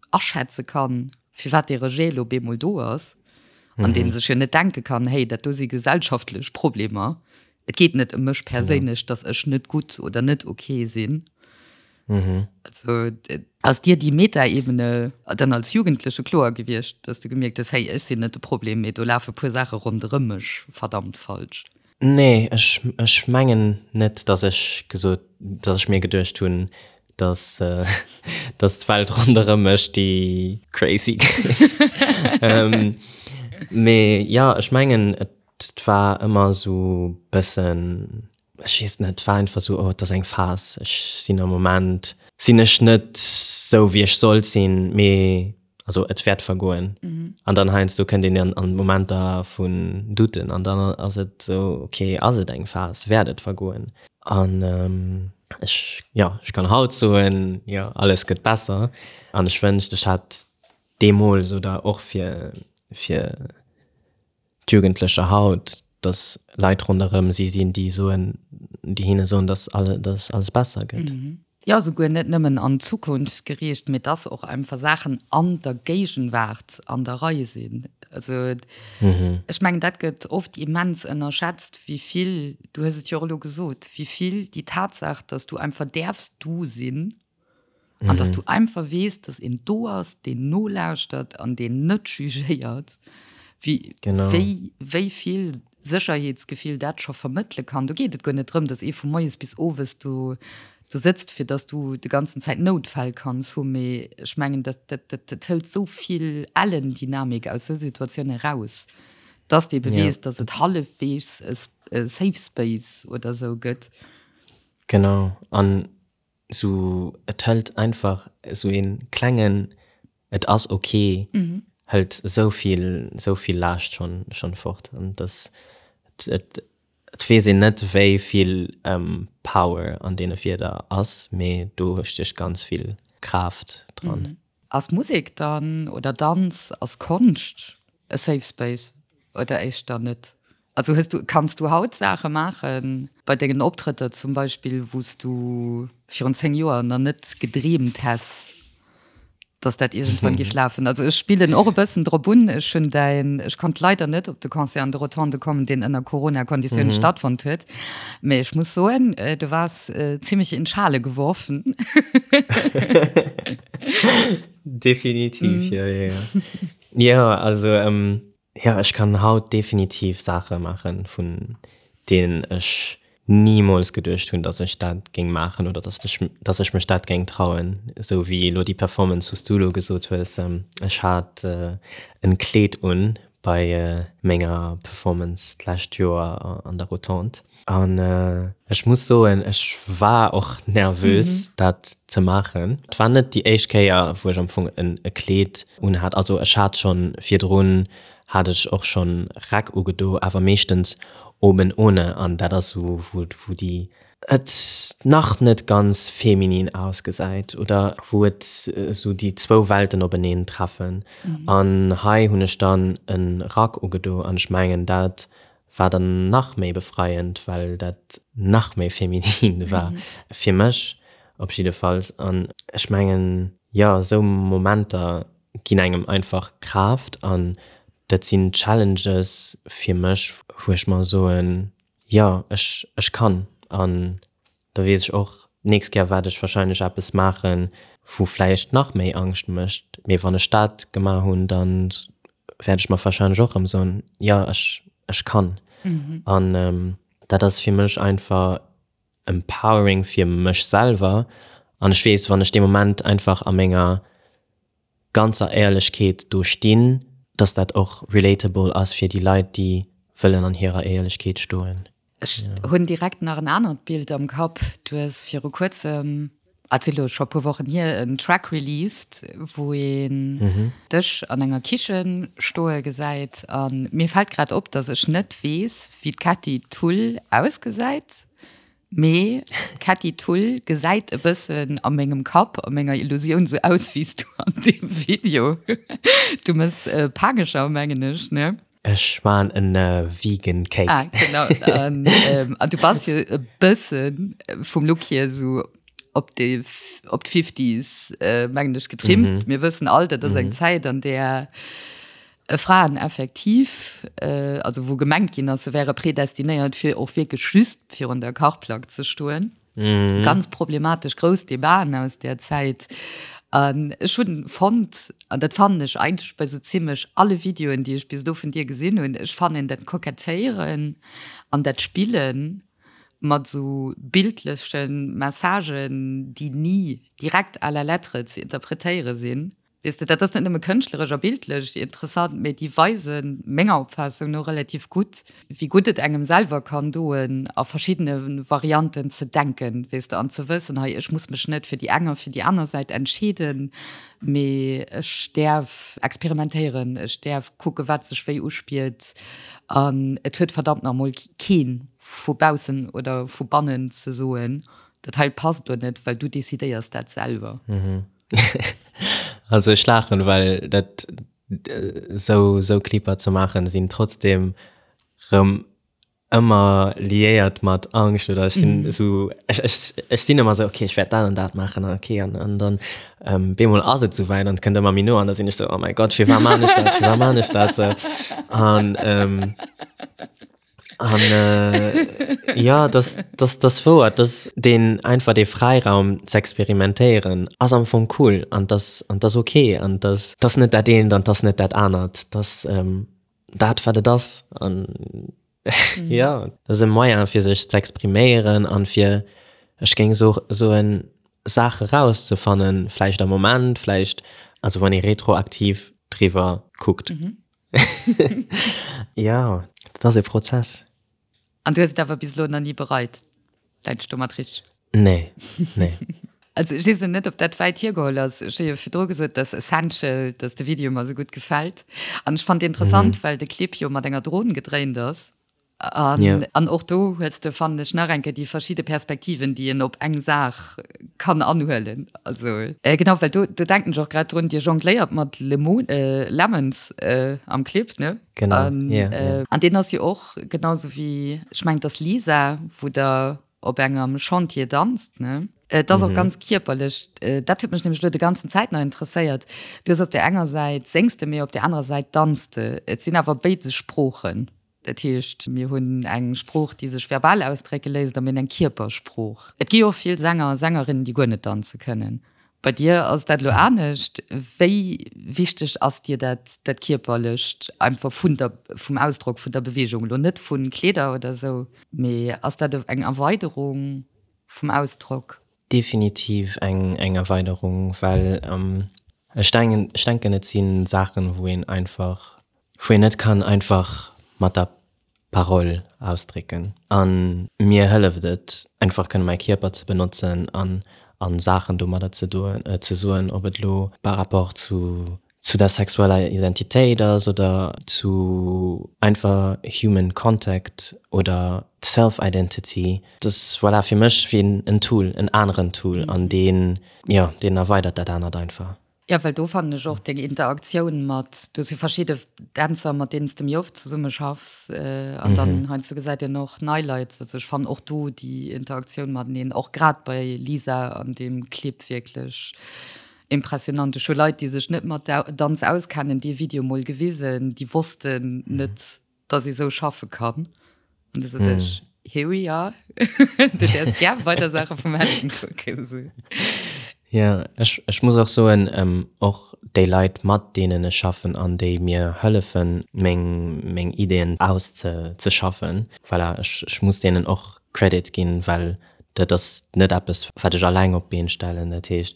aschätze kann, firwat dee Rejet elo bemol do ass, an dee sech jo net denke kann, hey, dat do si gesellschaftlech Problemer, et geet net ëm mech perséinlech, datt ech net gutt oder net ok sinn. Also ass dir déi Metaebene dann als Jugendleche kloer gewiescht, datt du gemierkt hues, hey, ech sinn net de Problem, mee do lafe puer Saache ronderëm mech verdammt falsch? Nee, ech, ech mengen net, datt ech gesot, datt ech mir geduecht hunn, datt, datt d'Welt ronderëm mech déi crazy gëtt. Mee jo, ech mengen, et war ëmmer esou bëssen, ech weess net, et war einfach esou, oh, et ass eng Phas, ech sinn am Moment, sinn ech net esou wéi ech sollt sinn, mee Also et wäert vergoen. An dann heiansdo kënnt een an an Momenter vun Douten an dann ass et esou, okay, ass et eng Phas, wäert et vergoen? An ech, jo, ech kann haut soen, jo, alles gëtt besser. An ech wënscht, ech hätt deemools oder och fir fir d'Jugendlecher haut, dass Leit ronderëm si sinn, déi soen, déi hinne soen, dass alle, dass alles besser gëtt. Jo, souguer net nëmmen an d'Zukunft geriicht, mee dass och einfach Saachen an der Géigenwaart an der Rei sinn. Also ech mengen, dat gëtt oft immens ënnerschätzt, wéi vill, du hues et jo och elo gesot, wéi vill déi Tatsaach, dass du einfach däerfs du sinn, An dass du einfach weess, dass een do ass, deen nolauschtert an deen net jugéiert, wéi, wéi, wéi vill Sécherheetsgefill dat scho vermëttele kann. Do geet et guer net drëm, dass ee vu moies bis owes do, do sëtzt, fir dass du de ganzen Zäit Noutfäll kanns hu, mee ech mengen, dat, dat, dat, dat hëlt esou vill ellen Dynamik aus esou Situatioune raus, dass de ebe weess, dass et hallefweegs e Safe Space oder esou gëtt. Genau. An Sou et hëlt einfach sou een klengen et ass ok hëlt sou vill sou vill Laascht schonn schonn fort an dass et et weess een net wéi vill Power an deene Wierder ass, mee do stécht ganz vill Kraaft dran. Ass Musek dann oder Danz, ass Konscht e Safe Space oder éischter net? Also hues du, kanns du haut Saache maachen, bei dengen Optrëtter zum Beispill, wou s du virun 10 Joer nach net gedreemt häss, dass dat iergendwann géif lafen? Also ech spillen och e bëssen drop un. Ech hunn däin, ech konnt leider net op de Concert an de Rotonde kommen, deen ënner Corona-Konditiounen stattfonnt huet. Mee ech muss soen, du waars zimmlech in Schale geworfen. Definitiv, jo, jo, jo. Jo, also Jo, ech kann haut definitiv Saache maachen, vun deenen ech nimools geduecht hunn, datt ech dat géing maachen oder datt ech, datt ech mech dat géing trauen. Esou wéi elo déi Performance, wou s du elo gesot hues. Ech hat en Kleed un bei menger Performance d'lescht Joer an der Rotonde an ech muss soen, ech war och nervös, dat ze maachen. Et war net déi éischt Kéier, wou ech am Fong e Kleed unhat. Also ech hat schonn virdrun hat ech och schonn Räck ugedo, awer meeschtens oben ohne an dat ass esou wou déi et nach net ganz feminin ausgesäit oder wou et esou déi zwou Welten openeen treffen. An hei hunn ech dann e Rack ugedo an ech mengen dat war dann nach méi befreiend, well dat nach méi feminin war fir mech op jiddefalls. An ech mengen, jo, esou Momenter ginn engem einfach Kraaft an dat sinn Challenges fir mech, wou ech mer soen, jo, ech, ech kann. An da weess ech och, d'nächst Kéier waert ech wahrscheinlech eppes maachen, wou vläicht nach méi Angscht mécht, mee wann ech dat gemaach hunn, da wäert ech mer warscheinlech och erëm soen, jo ech ech kann. An dat ass fir mech einfach empowering fir mech selwer an ech weess, wann ech dee Moment einfach a menger ganzer Éierlechkeet do stinn, dass dat och relatable ass fir déi Leit, déi wëllen an hirer Éierlechkeet stoen. Ech hunn direkt nach en anert Bild am Kapp. Du hues viru kuerzem, ah, et si lo scho e puer Wochen hier, en Track released, wou een dech an enger Kichen stoe gesäit. A mir fält grad op, dass ech net weess, wéi d'Kätti Thull ausgesäit. Mee d'Kätti Thull gesäit e bëssen a mengem Kapp, a menger Illusioun sou aus wéi s du an deem Video. Du mëss Pagescher, mengen ech, ne? Ech maan en vegan Cake. Ah, genau. An, ähm, an du bass jo e bëssen vum Look hier sou op déi, op d'Fifties, äh, mengen ech, getrimmt. Mm -hmm. Mir wëssen all, dat ass eng mm -hmm. Zäit, an där äh, Fraen effektiv, äh, also wou gemengt ginn ass, se wäre predestinéiert, fir och wierklech just virun der Kachplack ze stoen. Mhm. Ganz problematesch grouss Debaten aus där Zäit. An ech hunn fonnt, an dat fannen ech eigentlech bei sou zimmlech alle Videoen, déi ech bis elo vun dir gesinn hunn, ech fannen dat Kokettéieren an dat Spillen mat sou bildleche Messagen, déi ni direkt à la lettre ze interpretéiere sinn, Weess de, dat ass net nëmme kënschtleresch a bildlech interessant, mee déi weisen, menger Opfaassung no, relativ gutt, wéi gutt et engem selwer kann doen, a verschiddene Varianten ze denken, weess de, an ze wëssen, hei, ech muss mech net fir déi eng a fir déi aner Säit entscheeden, mee ech däerf experimentéieren, ech däerf kucken, wat sech wéi uspiert. An et huet verdammt nach emol kee vu baussen oder vu bannen ze soen, dat hei passt oder net, well du decidéiers dat selwer. Also ech laachen, well dat sou sou Clipper ze maachen sinn trotzdem rëm ëmmer liéiert mat Angscht oder ech sinn esou ech ech ech sinn ëmmer sou okay ech wäert dat an dat maachen an okay an an dann bemol ass et souwäit an et kënnt ëmmer méi no an da sinn ech sou oh mäi Gott firwat maan ech dat firwat maan ech dat sou an An äh, ja, das, das, das wouer, dass deen einfach dee Fräiraum z'experimentéieren ass am Fong cool an das, an das okay an das, das net dat eent an das net dat anert, das ähm, dat wat et ass an mhm. ja, das ass e Moyen fir sech z'expriméieren an fir ech géing so soen Saache rauszefannen, vläicht am Moment, vläicht also wann ee retroaktiv driwwer kuckt. Mhm. Jo, dat ass e Prozess. An du hues et awer bis elo nach ni bereit? Läit ech domat richteg? Nee, nee. Also ech weess elo net, ob dat wäit hiergeholl ass. Ech hu jo virdru gesot, dass Essential, dass de Video mer esou gutt gefält. An ech fand interessant, well de Clip jo mat enger Dron gedréint ass. An, yeah. an och do hues de fannen ech nach eng Kéier déi verschidde Perspektiven, déi een op eng Saach kann anhuelen. Also äh, genau, well do, do denken ech och grad drun, Dir jongléiert mat Lemon, äh, Lemons äh, am Clip, ne? Genau. An, yeah, yeah. Äh, an deen ass jo och genauso wéi, ech mengen, et ass Lisa, wou der op engem Chantier danzt, ne? Et ass och ganz kierperlech. Dat huet mech nämlech elo de ganzen Zäit nach interesséiert. Du hues op där enger Säit séngs de, mee op där anerer Säit danz de. Et sinn awer béides Sproochen. Dat heescht, mir hunn eng Sprooch, déi sech verbal ausdrécke léisst, a mir hunn eng Kierpersprooch. Et gi jo och vill Sänger a Sängerinnen, déi guer net danze kënnen. Bei dir ass dat elo anescht. Wéi wichteg ass dir dat, dat Kierperlecht einfach vun der, vum Ausdrock, vun der Beweegung? Elo net vu Kleeder oder esou, mee ass dat eng Erweiderung vum Ausdrock? Definitiv eng, eng Erweiderung, well ech denken, ech denken et si Saachen, wou een einfach, wou een net kann einfach mat der Parole ausdrécken. A mir hëlleft et einfach kënne mäi Kierper ze benotzen an a Saachen domadder ze doen, ze soen, ob et elo par rapport zu zu der sexueller Identitéit ass oder zu einfach human contact oder self identity. Dat ass voilà fir mech wéi en Tool, en aneren Tool an deen, jo, deen erweidert dat anert einfach. Jo, well do fannen ech och deng Interaktioun mat, du hues jo verschidde Dänzer, mat deenen s de méi oft zesumme schaffs, an dann heiansdo gesäit een och nei Leit. Also ech fannen och do déi Interaktioun mateneen, och grad bei Lisa an deem Clip wierklech impressionant. Ech hu Leit, déi sech net mat Danz auskennen, dee Video mol gewisen, déi wossten net, dass ee sou schaffe kann. An du sot ech, here we are. Du däerfs gär weider Saache vum Helen kucken. Jo, ech, ech muss och soen, och déi Leit, mat deenen ech schaffen an déi mir hëllefen, meng, meng Ideeën auszeschaffen, voilà, ech, ech muss deenen och Credit ginn, well dat ass net eppes, wat ech alleng op d'Been stellen. Dat heescht,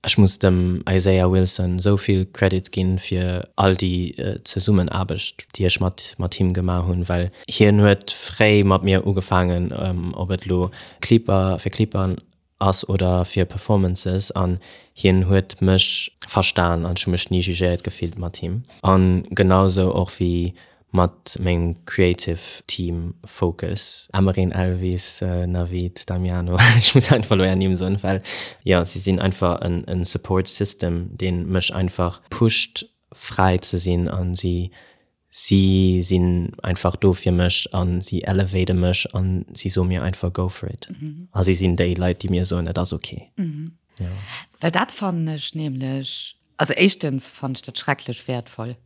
ech muss dem Isaiah Wilson esou vill Credit ginn fir all déi Zesummenaarbecht, déi ech mat, mat him gemaach hunn, well hien huet fréi mat mir ugefaangen, ob et elo Clipper, fir Clipper ass oder fir Performances an hien huet mech verstan an ech hu mech ni jugéiert gefillt mat him an genau sou och wéi mat mengem creative Team Focus, Emmeryn, Elvis, Navid, Damiano, ech muss einfach elo är Nimm soen well jo si sinn einfach en Support System deen mech einfach pusht fräi ze sinn an si Si sinn einfach do fir mech a si elevate mech a si soe mir einfach go for it. A si sinn déi Leit, déi mir soen, et ass ok. Jo. Well dat fannen ech nämlech, also éischtens fannen ech dat schrecklech wäertvoll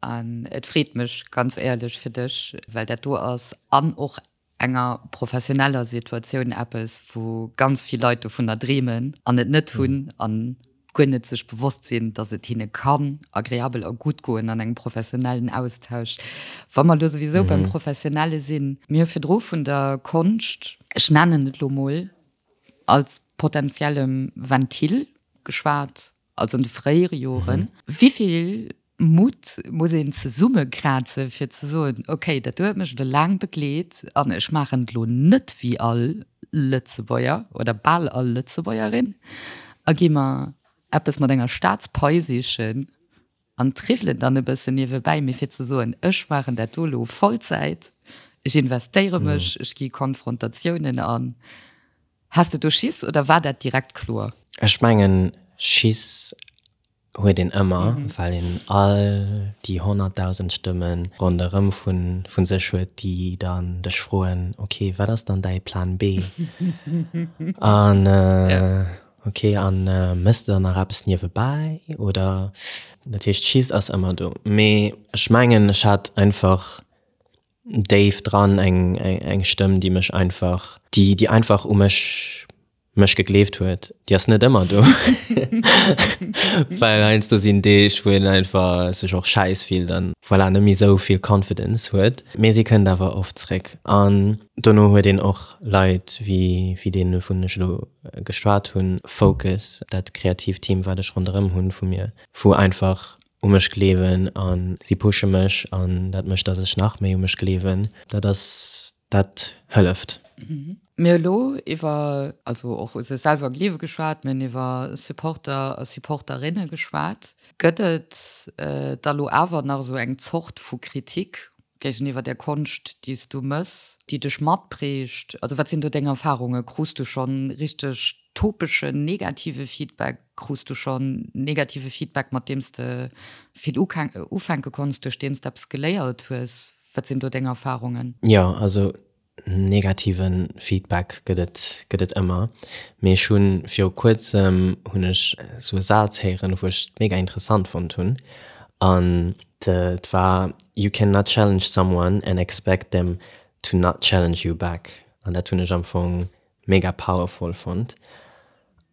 an et freet mech ganz éierlech fir dech, well dat do ass an och enger professioneller Situatioun eppes, wou ganz vill Leit dovunner dreemen an et net hunn an guer net sech bewosst sinn, datt et hinne kann agreabel a gutt goen an engem professionellen Austausch. Wa mer elo souwisou beim Professionelle sinn, mir hu virdru vun der Konscht, ech nennen et elo mol als potenziellem Ventil geschwat, also an de fréiere Joren, wéi vill Mutt muss een zesummekraze fir ze soen, okay, dat do huet mech elo laang begleet an ech maachen et elo net wéi all Lëtzebuerger oder bal all Lëtzebuergerin a gi mer eppes mat enger Staatspai sichen an triwwelen dann e bëssen niewebäi, mee fir ze soen, ech maachen dat do elo Vollzäit, ech investéiere mech, ech gi Konfrontatiounen an. Has de do Schiss oder war dat direkt kloer? Ech mengen, Schiss huet een ëmmer, well een all déi 100.000 Stëmme ronderëm vu sech huet, déi dann dech froen, ok, wat ass dann däi Plan B? An ok, a méchs de dann nach eppes niewebäi oder? Dat heescht, Schiss ass ëmmer do. Mee ech mengen, ech hat einfach déif dran eng eng Stëmm, déi mech einfach, déi déi einfach u mech mech gegleeft huet. Déi ass net ëmmer do, well heiansdo sinn Deeg, wou een einfach sech och schäiss fillt an voilà, net méi esou vill Confidence huet. Mee si kënnt awer oft zréck. An dono huet een och Leit wéi wéi deen, wouvun ech elo geschwat hunn, Focus, dat kreatiivt Team, wat ech ronderëm hunn vu mir, wou einfach u mech gleewen a si pushe mech an dat mécht, datt ech nach méi u mech gleewen. Dat ass, dat hëlleft. Mir hu lo iwwer, also och u sech selwer gleewe geschwat, mir hunn iwwer Supporter a Supporterinne geschwat. Gëtt et da lo awer nach esou eng Zort vu Kritik géigeniwwer der Konscht, déi s du mëss, déi dech matprägt? Also wat sinn do deng Erfarungen? Krus du schonn richteg topeschen negative Feedback? Krus du schonn negative Feedback, mat deem s de vill ufänke konns, duerch deen s de eppes geléiert hues? Wat sinn do deng Erfarungen? Jo, also negative Feedback gëtt et, gëtt et ëmmer. Mee ech hunn viru kuerzem hunn ech esou e Saz héieren, wou ech mega interessant fonnt hunn. An et war, You cannot challenge someone and expect them to not challenge you back. An dat hunn ech am Fong mega powerful fonnt.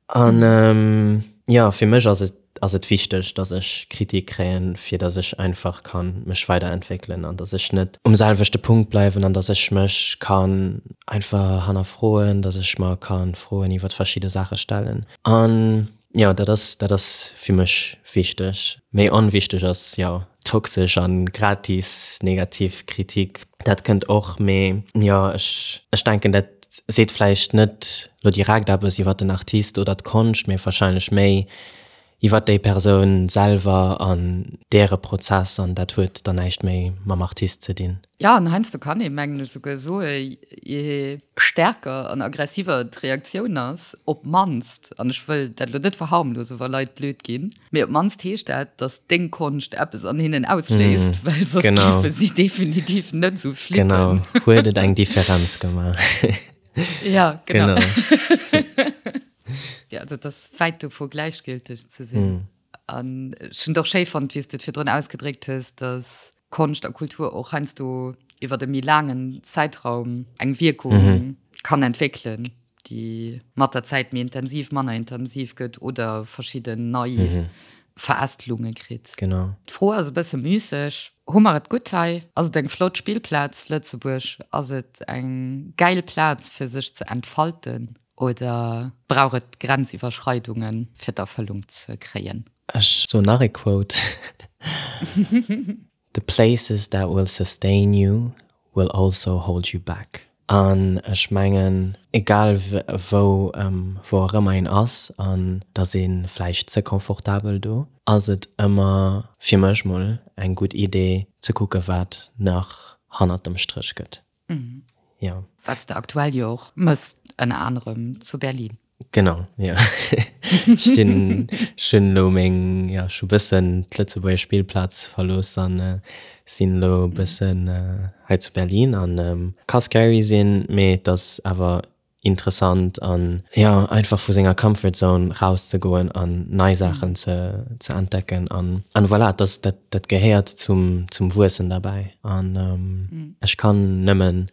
An jo, fir mech ass et ass et wichteg, dass ech Kritik kréien, fir dass ech einfach kann mech weiderentwéckelen an dass ech net um selwechte Punkt bleiwen an dass ech mech kann einfach hannerfroen, dass ech mer kann Froen iwwert verschidde Saache stellen. An jo, dat ass dat ass fir mech wichteg. Méi onwichteg ass jo toxesch an gratis negativ Kritik, dat kënnt och, mee jo, ech ech denken dat seet vläicht net lo direkt eppes iwwer den Artist oder d'Konscht, mee warscheinlech méi iwwer déi Persoun selwer an däre Prozess an dat huet dann näischt méi mam Artist ze dinn. Jo, an heiansdo kann ee mengen ech esouguer soe je stärker an aggressiver d'Reaktioun ass, op d'mannst, an ech wëll dat elo net verharmlosen, wa Leit blöd ginn, mee op d'mannst heescht dat, datt deng Konscht eppes an hinnen ausléist, well soss géife si definitiv net esou flippen. Genau, huet et eng Differenz gemaach. Ja, genau. Ja, also et ass wäit dovu gläichgülteg ze sinn. An ech hunn et och schéi fonnt, wéi s de et virdrun ausgedréckt hues, datt Konscht a Kultur och heiansdo iwwer e méi laangen Zäitraum eng Wierkung kann entwéckelen. déi mat der Zäit méi intensiv, manner intensiv gëtt oder verschidden nei Verästelunge kritt. Genau. D'Fro ass e bësse müsseg. Hu mer et gutt hei? Ass et eng flott Spillplaz, Lëtzebuerg? Ass et eng gäil Plaz, fir sech ze entfalten? Oder brauch et Grenziwwerschreidungen, fir d'Erfëllung ze kréien? Ech soen nach e Quote, The places that will sustain you will also hold you back. An ech mengen, egal wou, wou och ëmmer een ass, an et ass ee vläicht ze confortabel do, ass et ëmmer, fir mech mol, eng gutt Idee ze kucke wat nach hannert dem Stréch gëtt. Jo. Wat s de aktuell jo och mëss, ënner anerem zu Berlin. Genau, jo. Ech sinn, ech hunn elo meng, jo, ech hu bëssen d'Lëtzebuerger Spillplaz verlooss an sinn elo bëssen hei zu Berlin an ka scary sinn, mee et ass awer interessant an, jo, einfach vu senger Comfort Zone rauszegoen an nei Saachen ze ze entdecken an an voilà, dat dat dat gehéiert zum zum Wuessen derbäi an ech kann nëmmen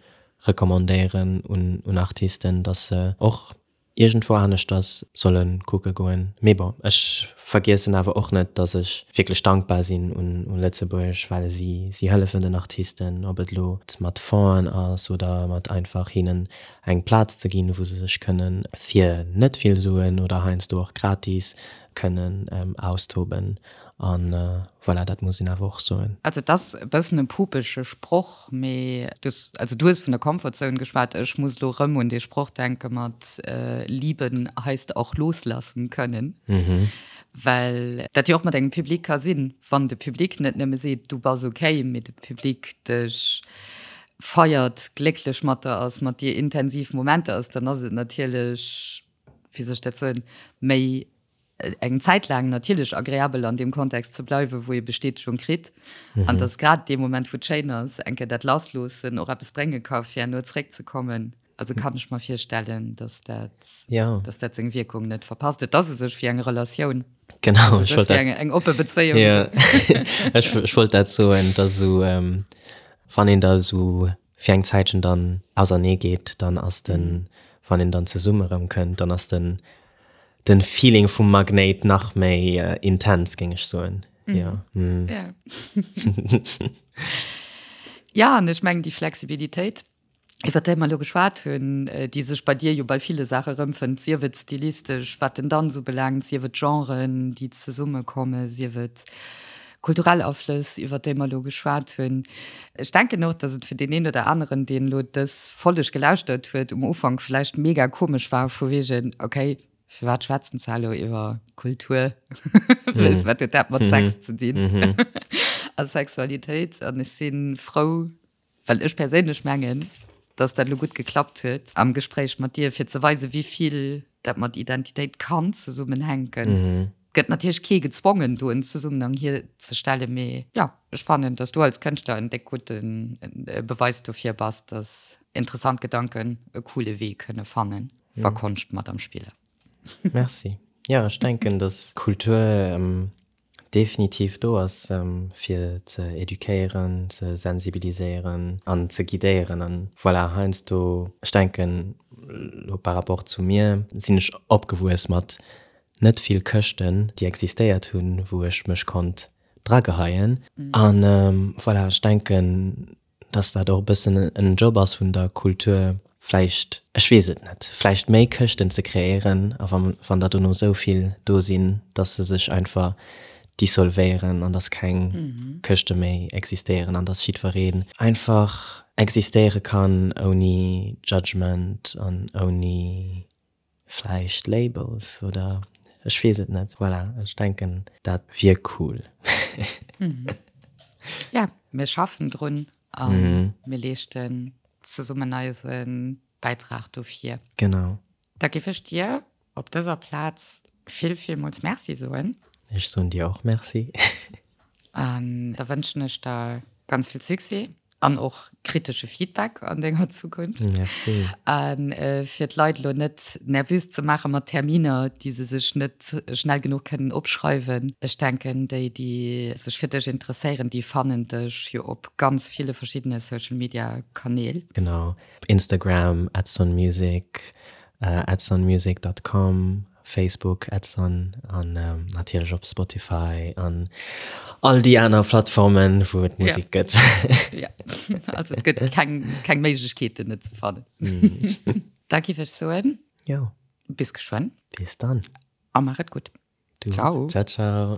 recommandéieren un un Artisten, dass se och iergendwou aneschters solle kucke goen. Mee bon, ech vergiessen awer och net, dass ech wierklech dankbar sinn un un Lëtzebuerg, well si si hëllefen den Artisten, ob et elo mat Fonds'en ass oder mat einfach hinnen eng Plaz ze ginn, wou se sech kënnen fir net vill Suen oder heiansdo och gratis kënnen austoben. An voilà, dat muss een awer och soen. Also et ass e bëssen e pupege Sproch, mee du hues, also du hues vun der Comfort Zone geschwat, ech muss elo erëm un dee Sproch denke mat Lieben heisst auch loslassen können, well dat jo och mat engem Public ka sinn, wann de Public net nëmme seet, du bass okay, mee de Public dech feiert, glécklech mat der ass, mat dir intensiv Momenter ass, dann ass et natierlech, wéi soll ech dat soen, méi eng Zäit laang natierlech agreabel an deem Kontext ze bleiwen, wou ee Bestätegung kritt. An dass grad dee Moment, wou et schéin ass, eng Kéier dat Lassloossen och eppes brénge ka fir herno zeréckzekommen. Also kann ech mer virstellen, dass dat, ja. dass dat seng Wierkung net verpasst. Et ass u sech wéi eng Relatioun. Genau, ech wollt dat, eng oppe Bezéiung. Ja. ech, ech wollt dat soen, dass esou, ähm, wann een da esou fir eng Zäitchen dann ausernee geet, dann ass den, wann een dann zesumme erëm kënnt, dann ass den, den Feeling vum Magnéit nach méi intens, géing ech soen. Jo. Ja. Ja, an ech mengen déi Flexibilitéit, iwwer déi mer elo geschwat hunn, déi sech bei dir jo bei ville Saache erëmfënnt, sief et stilistesch, wat den Danz ubelaangt, sief et Genren, déi zesummekommen, sief et kulturell Aflëss, iwwer déi mer elo geschwat hunn. Ech denken och, dass et fir deen een oder aneren, deen elo dës Folleg gelauschtert huet, um Ufank vläicht mega komesch war, vu wegen, okay, firwat schwätzen se elo iwwer Kultur? Weess, wat huet dat mat Sex ze dinn a Sexualitéit? An ech si frou, Well ech perséinlech mengen, dass dat elo gutt geklappt huet am Gespréich mat dir, fir ze weisen, wéi vill dat mat Identitéit kann zesummenhänken. Gëtt natierlech kee gezwongen, do en Zesummenhang hierzestellen, mee jo, ech fannen, dass du als Kënschtler en déck gudde Beweis dofir bass, dass interessant Gedanken e coole Wee kënne fannen, wa Konscht mat am Spill ass. Merci. Jo, ech denken, dass Kultur definitiv do ass fir ze eduquéieren, ze sensibiliséieren an ze guidéieren an voilà, heiansdo, ech denken elo par rapport zu mir, sinn ech opgewuess mat net vill Këschten déi existéiert hunn, wou ech mech konnt drageheien an voilà, ech denken dass dat och e bëssen en Job ass vun der Kultur, vläicht, ech weess et net, vläicht méi Këschten ze kreéieren a wann, wann der dono esou vill do sinn, dass se sech einfach dissolvéieren an dass keng Këschte méi existéieren an dass jiddwereen einfach existéiere kann ouni Judgment an ouni Vläicht Labels oder ech weess et net. Voilà, ech denken dat wier cool. Ja, mir schaffen drun a mir leeschten zesummen eise Bäitrag dofir. Genau. Da géif ech dir op dëser Plaz vill, villmools Merci soen. Ech soen dir och Merci. An da wënschen ech der ganz vill Succès an och kritesche Feedback an denger Zukunft. Merci. A fir d'Leit elo net nervös ze maache mat Terminer, déi se sech net schnell genuch kënnen opschreiwen, ech denken, déi, déi sech fir dech interesséieren, déi fannen dech jo op ganz ville verschiddene Social Media Kanäl. Genau, op Instagram, @sonmusic. Edsonmusic dot com, Facebook Edson an natierlech op Spotify an all déi aner Plattformen, wou et Musek gëtt. Ja, also et gëtt keng, keng Méiglechkeet, en net ze fannen. Da giff ech soen. Jo. Bis geschwënn. Bis dann. A maach et gutt. Du. Ciao. Ciao, ciao.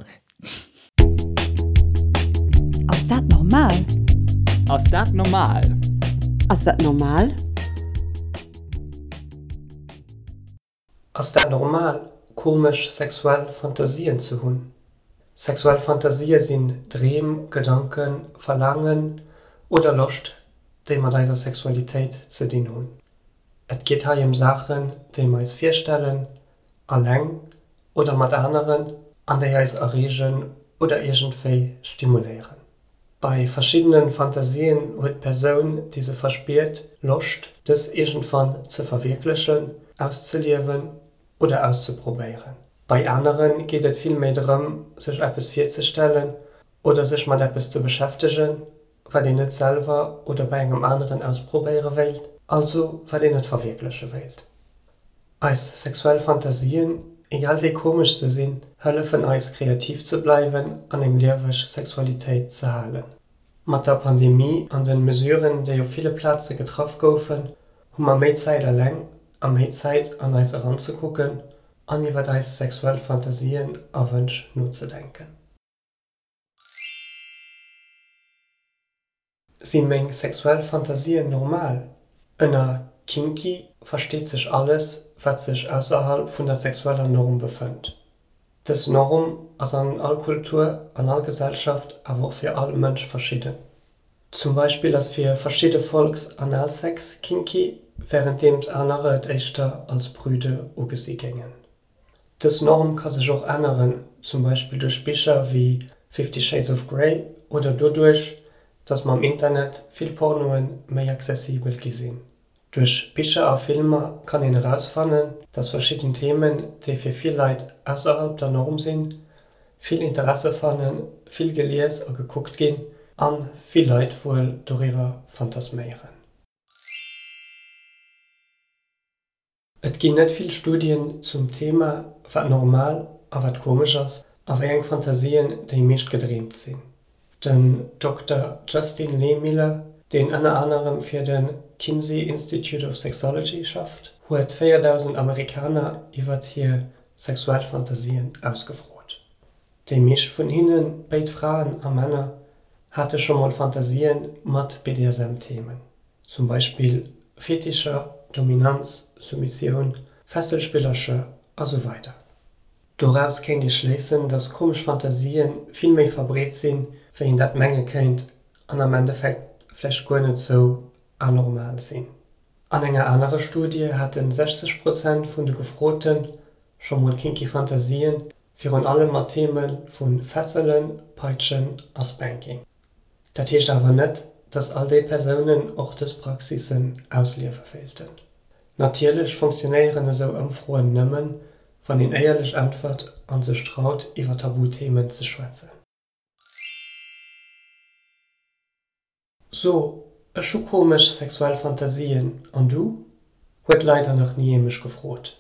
Ass dat normal? Ass dat normal? Ass dat normal? Ass dat normal, komesch sexuell Fantasien ze hunn? Sexuell Fantasië sinn Dreem, Gedanken, Verlaangen oder Loscht, déi mat eiser Sexualitéit ze dinn hunn. Et geet hei ëm Saachen, déi mer eis virstellen, alleng oder mat aneren, an déi eis erreegen oder iergendwéi stimuléieren. Bei verschiddene Fantasien huet d'Persoun, déi se verspiert, Loscht, dës iergendwann ze verwierklechen, auszeliewen oder auszeprobéieren. Bei anere geet et vill méi drëm, sech eppes virzestellen oder sech mat eppes ze beschäftegen, wat een net selwer oder bei engem aneren ausprobéiere wéilt, also wat een net verwierkleche wéilt. Eis sexuell Fantasien, egal wéi komesch se sinn, hëllefen eis kreativ ze bleiwen an eng lieweg Sexualitéit ze halen. Mat der Pandemie an den Mesuren, déi op ville Plaze getraff goufen, hu mer méi Zäit eleng a méi Zäit an eis eranzekucken an iwwert eis sexuell Fantasien a Wënsch nozedenken. Si meng sexuell Fantasien normal? Ënner kinky versteet sech alles, wat sech ausserhalb vun der sexueller Norm befënnt. Dës Norm ass an all Kultur, an all Gesellschaft, awer och fir all Mënsch verschidden. Zum Beispill ass fir verschidde Volks Analsex kinky, wärenddeems anerer et éischter als prüde ugesi géingen. Dës Norm ka sech och änneren, zum Beispill duerch Bicher wéi Fifty Shades of Grey oder doduerch, datt mam Internet vill Pornoe méi accessibel gi sinn. Duerch Bicher a Filmer kann een erausfannen, datt verschidden Themen, déi fir vill Leit ausserhalb der Norm sinn, vill Interesse fannen, vill gelies a gekuckt ginn a vill Leit wuel doriwwer fantasméieren. Et ginn net vill Studien zum Thema, wat normal a wat komesch ass a wéi eng Fantasien déi meescht gedreemt sinn. Den Dokter Justin Lehmiller, deen ënner anerem fir de Kinsey Institute of Sexology schafft, huet 4.000 Amerikaner iwwert hir sexuell Fantasien ausgefrot. Déi meescht vun hinnen, béid Fraen a Männer, hate scho mol Fantasien mat BDSM-Themen, zum Beispill Fetischer, Dominanz, Soumissioun, Fesselspillercher a sou weider. Doraus kéint ee schléissen, dass komesch Fantasien vill méi verbreet sinn, wéi een dat menge kéint an am Endeffekt vläicht guer net sou anormal sinn. An enger anerer Studie hate 60 Prozent vun de Gefrote scho mol kinky Fantasien, virun allem mat Theme vu Fesselen, Peitschen a Spanking. Dat heescht awer net, dass all déi Persounen och dës Praxissen ausliewe wéilten. Natierlech funktionéieren esou Ëmfroen nëmmen, wann een éierlech äntwert a sech traut, iwwer Tabuthemen ze schwätzen. So, ech hu komesch sexuell Fantasien, an du? Huet leider nach ni ee mech gefrot.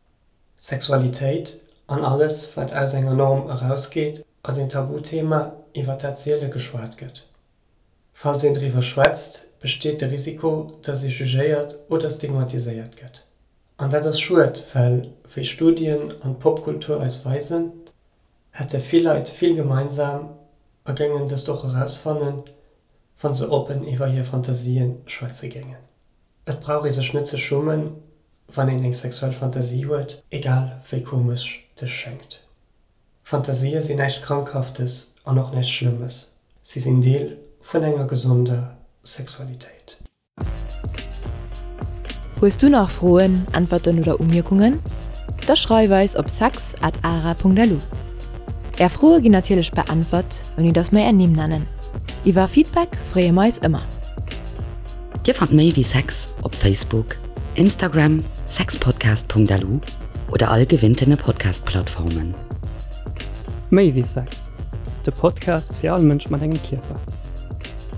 Sexualitéit, an alles wat aus enger Norm erausgeet, ass een Tabuthema iwwer dat siele geschwat gëtt. Falls een driwwer schwätzt, besteet de Risiko, dass ee jugéiert oder stigmatiséiert gëtt. An dat ass schued, well, wéi Studien an d'Popkultur eis weisen, hätte vill Leit vill gemeinsam a géingen dëst och erausfannen, wa se oppen iwwer hir Fantasien schwätze géingen. Et brauch ee sech net ze schummen, wann een eng sexuell Fantasie huet, egal wéi komesch dës schéngt. Fantasië sinn näischt Krankhaftes an och näischt Schlëmmes, si sinn Deel vun enger gesonder Sexualitéit. Hues du nach Froen, Äntwerten oder Umierkungen? Da schreif eis op sex at ara.lu. Är Froe ginn natierlech beäntwert, ouni dass mer är Nimm nennen. Iwwer Feedback freeë mer eis ëmmer. Dir fannt méi wéi Sex op Facebook, Instagram, sexpodcast.lu oder all gewinntene Podcast-Plattformen. Méi wéi Sex, de Podcast fir all Mënsch mat engem Kierper.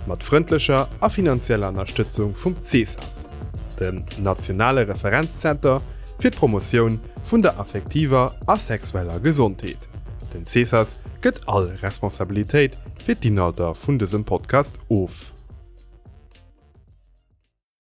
Mat frëndlecher a finanzieller Ënnerstëtzung vum CSAS, dem nationale Referenzzenter. fir d'Promotioun vun der affektiver a sexueller Gesondheet. Den Cesas gëtt all Responsabilitéit fir d'Inhalter vun dësem Podcast of.